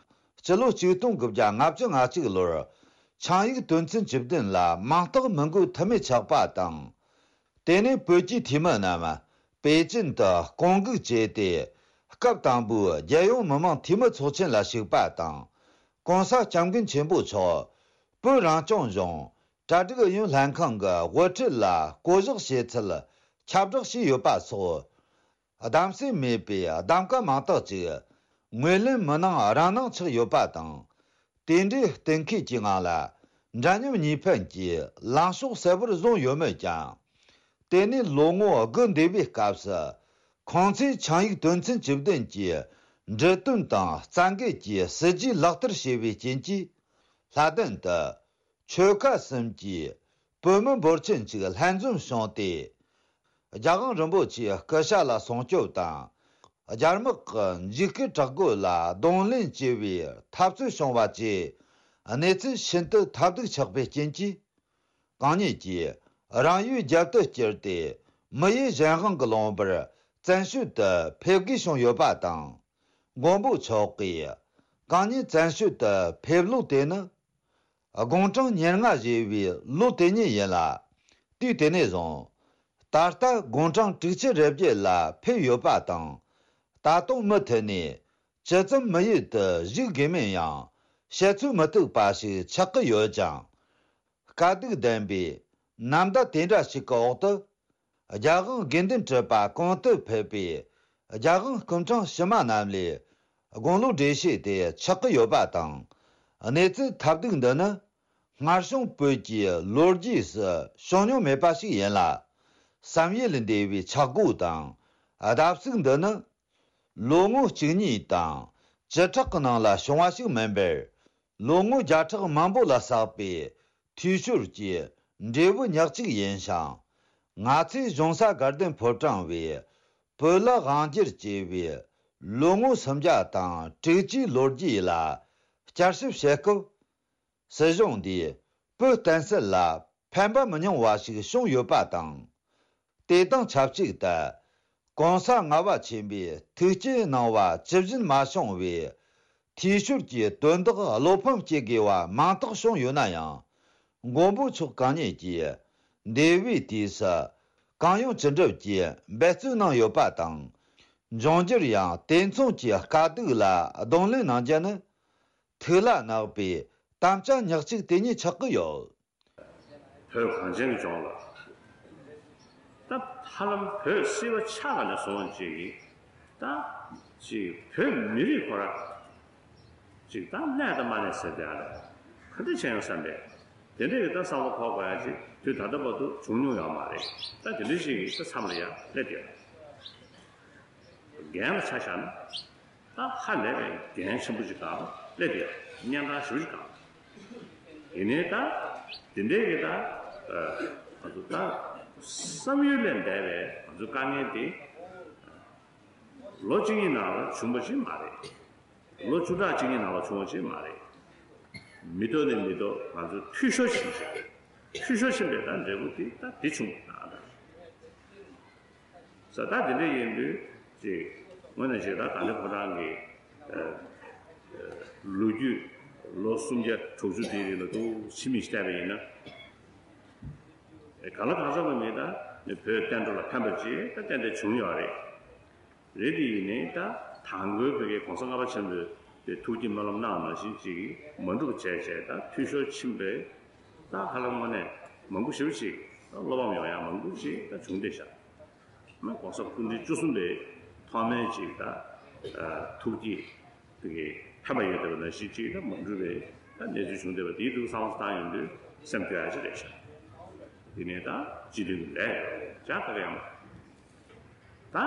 སྤྱི་ལོ་ཆིག་སྟོང་དགུ་བརྒྱ་ལྔ་བཅུ་ང་གཅིག་ལོར་ཆིངས་ཡིག་དོན་ཚན་བཅུ་བདུན་ལ་མིང་རྟགས་མི་འགོད་ཐབས་མེད་ཆགས་པ་དང་། དེ་ནས་བོད་ཀྱི་འཐུས་མི་རྣམས་པེ་ཅིན་དུ་སྐོང་འགུག་བྱས་ཏེ། སྐབས་དང་པོའི་རྒྱལ་ཡོངས་མི་དམངས་འཐུས་མི་ཚོགས་ཆེན་ལ་ཞུགས་པ་དང་། གོང་ས་སྐྱབས་མགོན་ཆེན་པོ་མཆོག་བོད་རང་སྐྱོང་ལྗོངས་གྲ་སྒྲིག་ཨུ་ཡོན་ལྷན་ཁང་གི་དབུ་ཁྲིད་ལ་བསྐོ་གཞག་བྱས་ཚུལ་ཁྱབ་བསྒྲགས་བྱས་ཡོད་པ་སོགས། གདམ་གསེས་མེད་པའི་གདམ་ག་མང་དག་ཅིག་ངོས་ལེན་མི་གནང་རང་གནང་ཆགས་ཡོད་པ་དང་། དེ་འདྲའི་གཏན་འཁེལ་གྱི་ངང་ལ་འདྲ་མཉམ་གཉིས་ཕན་གྱི་ལངས་ཕྱོགས་གསལ་པོར་བཟུང་ཡོད་མོད་ཀྱང་། དེ་ནས་ལོ་ངོ་དགུ་འདས་པའི་སྐབས་སུ། ཁོང་ཚོས་ཆིངས་ཡིག་དོན་ཚན་བཅུ་བདུན་གྱི་འབྲི་དོན་དང་རྩ་འགལ་གྱི་སྲིད་ཇུས་ལག་བསྟར་བྱས་པའི་རྐྱེན་གྱིས། ལྷ་ལྡན་དུ། ཆོལ་ཁ་གསུམ་གྱི་བོད་མི་འབོར་ཆེན་ཞིག་ལྷན་འཛོམས་བྱུང་སྟེ། རྒྱལ་དབང་རིན་པོ་ཆེའི་སྐུ་ཕྱྭ་ལ་སྲུང་སྐྱོབ་དང་། རྒྱ་དམག་གི་འཇིགས་སྐུལ་དྲག་རྒོལ་ལ་གདོང་ལེན་བྱེད་པའི་འཐབ་རྩོད་བྱུང་བ་བཅས་གནས་ཚུལ་ཤིན་ཏུ་ཐབས་སྡུག་ཆགས་པའི་རྐྱེན་གྱིས། གང་ཉིད་ཀྱིས་རང་ཡུལ་རྒྱལ་དུ་བསྐྱུར་ཏེ་མི་ཡུལ་གཞན་དབང་གི་ལུང་པར་བཙན་བྱོལ་དུ་ཕེབས་དགོས་བྱུང་ཡོད་པ་དང་། མགོན་པོ་མཆོག་གིས་གང་ཉིད་བཙན་བྱོལ་དུ་ཕེབས་ལོ་དེ་ནི། དགུང་གྲངས་ཉེར་ལྔ་བཞེས་པའི་ལོ་དེ་ཉིད་ཡིན་ལ། དུས་དེ་ནས་བཟུང་། ད་ལྟ་དགུང་གྲངས་དྲུག་ཅུ་རེ་བརྒྱད་ལ་ཕེབས་ཡོད་པ་དང་། ད་དུང་མུ་མཐུད་ནས་ཇི་ཙམ་མི་ཡུལ་དུ་བཞུགས་དགོས་མིན་ཡང་བཤད་ཚོད་མི་ཐིག་པ་ཞིག་ཆགས་ཀྱི་ཡོད་ཅིང་། དཀའ་སྡུག་ལྡན་པའི་ནམ་ཟླ་དེ་འདྲ་ཞིག་གི་འོག་ཏུ། རྒྱལ་དབང་དགེ་འདུན་གྲུབ་པ་གོང་དུ་ཕེབས་པའི་རྒྱལ་དབང་སྐུ་ཕྲེང་ཕྱི་མ་རྣམས་ལས་དགུང་ལོ་བགྲེས་ཤོས་དེ་ཆགས་ཀྱི་ཡོད་པ་དང་། གནས་ཚུལ་ཐབས་སྡུག་འདི་ནི་སྔར་བྱུང་བོད་ཀྱི་ལོ་རྒྱུས་སུ་བྱུང་མྱོང་མེད་པ་ཞིག་ཡིན་ལ། བསམ་ཡུལ་ལས་འདས་པའི་ཆག་སྒོ་དང་བརྡབ་གསིག་འདི་ནི། ལོ་ངོ་གཅིག་གཉིས་དང་བཅུ་ཕྲག་གི་ནང་ལ་བྱུང་བ་ཞིག་མིན་པར། ལོ་ངོ་བརྒྱ་ཕྲག་མང་པོ་ལ་བསགས་པའི་འཐུས་ཤོར་གྱི་འབྲས་བུ་ཉག་གཅིག་ཡིན་ཞིང་། ང་ཚོས་གཞུང་ས་དགའ་ལྡན་ཕོ་བྲང་བའི་བོད་ལ་དབང་སྒྱུར་བྱས་པའི་ལོ་ངོ་སུམ་བརྒྱ་དང་དྲུག་ཅུའི་ལོ་རྒྱུས་ལ་བསྐྱར་ཞིབ་བྱེད་སྐབས། སྲིད་གཞུང་འདིས་བོད་བསྟན་སྲིད་ལ་ཕན་པ་མི་ཉུང་བ་ཞིག་བྱུང་ཡོད་པ་དང་། དེ་དང་ཆབས་ཅིག་ཏུ། གོང་ས་ལྔ་པ་ཆེན་པོས་ཐུགས་བསྐྱེད་གནང་བ་ཇི་བཞིན་མ་བྱུང་བས། འཐུས་ཤོར་གྱི་དོན་དག་བློ་ཕམ་སྐྱེ་དགོས་པ་མང་དག་བྱུང་ཡོད་ན་ཡང་། མགོན་པོ་མཆོག་གང་ཉིད་ཀྱིས་འདས་པའི་དུས་སུ་གང་ཡོང་ཅི་འགྲུབ་ཀྱི་འབད་བརྩོན་གནང་ཡོད་པ་དང་། འབྱུང་འགྱུར་ཡང་དེ་མཚུངས་ཀྱི་དཀའ་སྡུག་ལ་གདོང་ལེན་གནང་རྒྱུ་ནི། ཐུགས་ལ་བརྣག་པའི་དམ་བཅའ་ཉག་གཅིག་དེ་ཉིད་ཆགས་ཀྱི་ཡོད། བོད་གངས་ཅན་གྱི་ལྗོངས་ལ། ད་ཧ་ལམ་བོད་སྲིད་པ་ཆགས་པ་ནས་བཟུང་ཅིག་གིས། ད་ཅིག་བོད་མི་རིགས་ཁོ་ར་ཅིག་ད་གནས་དང་མ་གནས་ཟེར་དེ་ཨ་རེད། ག་འདྲ་བྱས་ཡོང་བསམ་པས། དེ་འདྲ་གི་ད་བསམ་བློ་འཁོར་དགོས་ཡ་ཅིག་དུས་ད་ལྟ་བར་དུ་བྱུང་མྱོང་ཡོད་མ་རེད། ད་དེ་འདྲ་ཞིག་གིས་ད་མཚམས་ལ་ཡ་སླེབས་ཡོད། འགན་ལ་ཆ་བཞག་ན། ད་ཧ་ལས་པའི་འགན་ཆེན་པོ་ཅིག་སྒང་སླེབས་ཡོད། གཉན་འཕྲང་ཞེ་པོ་ཅིག་སྒང་། ཡིན་ནའི་ད་དེ་འདྲའི་གི་ད་ཨ་ང་ཚོ་ད་བསམ་ཡུལ་ལས་འདས་པའི་ང་ཚོའི་དཀའ་ངལ་དེ་ལོ་གཅིག་གཉིས་ནང་ལ་བྱུང་བ་ཞིག་མ་རེད། ལོ་བཅུ་ཕྲག་གཅིག་གཉིས་ནང་ལ་བྱུང་བ་ཞིག་མ་རེད། མི་ཐོག་ནས་མི་ཐོག་ང་ཚོ་འཐུས་ཤོར་ཕྱིན་བྱས། འཐུས་ཤོར་ཕྱིན་པའི་ད་འབྲས་བུ་དེ་ད་དེ་བྱུང་ད་ད། ས་ད་དེ་འདྲ་ཡིན་དུས་ཅིག་དངོས་གནས་ཅིག་ད་ད་ལྟ་ཁོ་རང་གི་ཨ་ཨ་ལོ་རྒྱུས་ལོ་སུམ་བརྒྱ་དྲུག་ཅུ་དེའི་རིང་ལ་འདུག་ཕྱི་མིག་བལྟས་པ་ཡིན་ན། གང་ལ་གང་འཚམ་པ་མིན་ད་ནི་བོད་བསྟན་འགྲོ་ལ་ཕན་པ་ཅིག་ད་ཏན་ཏན་བྱུང་ཡོད་རེད། རེད་དེ་ཡིན་ནའི་ད་དང་པོའི་བོད་ཀྱི་གོང་ས་ལྔ་པ་ཆེན་པོས་དེ་ཐུགས་ཀྱི་སྨོན་ལམ་གནང་ནང་བཞིན་ཅིག་མ་འགྲུབ་བྱས་བྱས་ད་འཐུས་ཤོར་ཕྱིན་པས། ད་ཧ་ལམ་དངོས་གནས་མང་པོ་ཞེ་པོ་ཅིག་ད་བློ་ཕམ་ཡོང་ཡ་མང་པོ་ཞིག་ད་བྱུང་བསྡད་ཤག་ན་གོང་ས་སྐུ་ཕྲེང་བཅུ་གསུམ་པའི་ཐོག་མའི་ཅིག་ད་ཐུགས་ཀྱི་དེ་གི་ཕན་པ་ཡོད་བསྡད་པ་ནང་བཞིན་ཅིག་ད་མ་འགྲུབ་པའི་ད་གནས་ཚུལ་བྱུང་བསྡད་པ་དེའི་ཐུགས་བསམ་བློ་བཏང་ཡོང་དུས་སེམས་སྐྱོ་ཡ་ཅིག་རེད་ཤག་དེ་ནས་ད་སྤྱི་འཐུས་ཀྱི་ལས་ཡོད་ཅག་ད་ག་ཡང་མ། ད།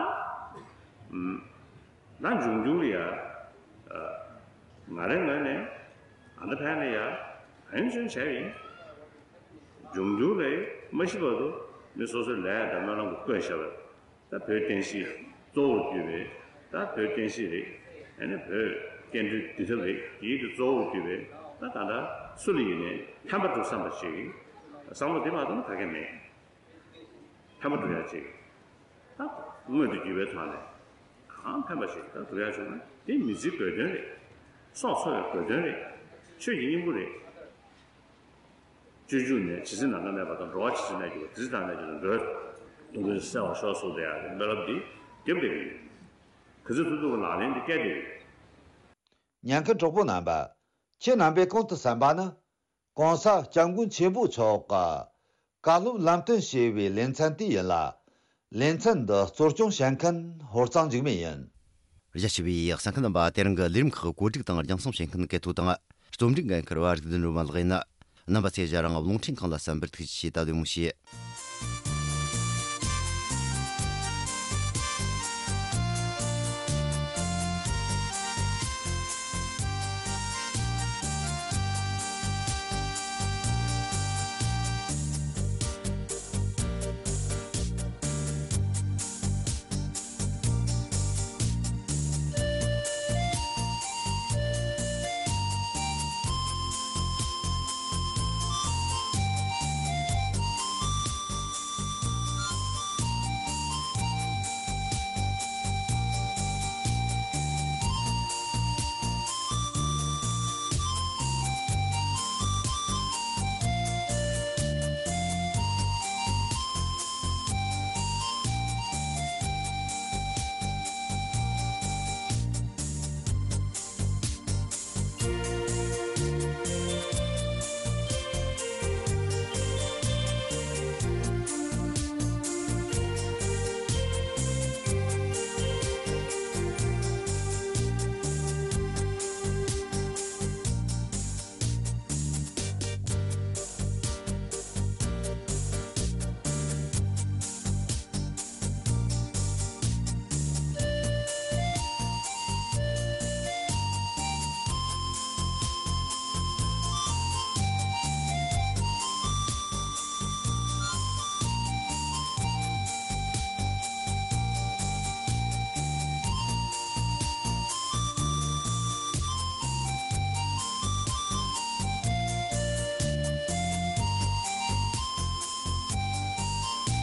ཨམ། ད་འབྱུང་འགྱུར་ལ་ཡ། ཨ། ང་རའི་ངོས་ནས་ཨ་ད་ཕན་ལ་ཡ་ཨན་ཅོན་བྱས་ཡིན། འབྱུང་འགྱུར་ལ་མ་ཤི་བར་དུ་མི་སོ་སོའི་ལས་དང་སྨོན་ལམ་གྱི་བཀོད་བཞག་པ་ད་བོད་བསྟན་སྲིད་གཙོ་བོར་གྱུར་པའི་ད་བོད་བསྟན་སྲིད་རེད། ཨ་ནི་བོད་བསྟན་འགྲོའི་འདུལ་ཐབས་རེད། དེའི་དུ་གཙོ་བོར་གྱུར་པའི་ད་ད་ལྟ་སུ་ལ་ཡིན་ནའི་ཕན་པ་སྒྲུབ་བསམ་པ་ཞིག་བསམ་བློ་དེ་མ་གཏོགས་ན་ག་གེ་མེད། ཕན་པ་སྒྲུབ་ཡ་ཅིག་ད་མངོན་དུ་གྱུར་པའི་ཐོག་ནས་གང་ཕན་པ་ཞིག་ད་སྒྲུབ་ཡ་བྱུང་ན་དེ་མི་ཚེའི་དགོས་དོན་རེད། སྲོག་འཚོ་བའི་དགོས་དོན་རེད། ཆོས་ཀྱི་སྙིང་པོ་རེད། སྤྱོད་འཇུག་ནས་ཇི་སྲིད་ནམ་མཁའ་གནས་པ་དང་། འགྲོ་བ་ཇི་སྲིད་གནས་གྱུར་པ་དེ་སྲིད་མཐར་གནས་གྱུར་ཅིང་འགྲོ་བའི་དོན་ཀུན་གསལ་བར་ཤོག་གསུངས་ཏེ་ཡང་སྨོན་ལམ་འདི་རྒྱབ་བསྡད་ཀྱི་ཡོད། ག་ཚོད་ཐུབ་ཐུབ་ཀྱི་ལག་ལེན་འདི་བཀལ་བསྡད་ཀྱི་ཡོད། ཉན་མཁན་གྲོགས་པོ་རྣམ་པ། ཁྱེད་རྣམ་པས་གོང་དུ་གསན་པ་ནི། གོང་ས་སྐྱབས་མགོན་ཆེན་པོ་མཆོག་གི་བཀའ་སློབ་ལམ་སྟོན་ཞེས་པའི་ལེ་ཚན་དེ་ཡིན་ལ། ལེ་ཚན་འདི་གཙོ་སྐྱོང་བྱེད་མཁན་ཧོར་གཙང་འཇིགས་མེད་ཡིན། རྒྱ་ཆེ་བའི་གསན་མཁན་རྣམ་པ། དེ་རིང་གི་ལས་རིམ་ཁག་བཀོད་སྒྲིག་དང་རྒྱང་སྲིང་བྱེད་མཁན་གལ་ཐོ་དང་། རྩོམ་སྒྲིག་འགན་འཁུར་བ་རིག་ལྡན་སྒྲོལ་མ་ལགས་ཡིན། རྣམ་པ་ཚོས་ང་རང་རླུང་འཕྲིན་ཁང་ལ་གསན་པར་ཐུགས་རྗེ་ཆེ། ད་བདེ་མོ་བྱོས།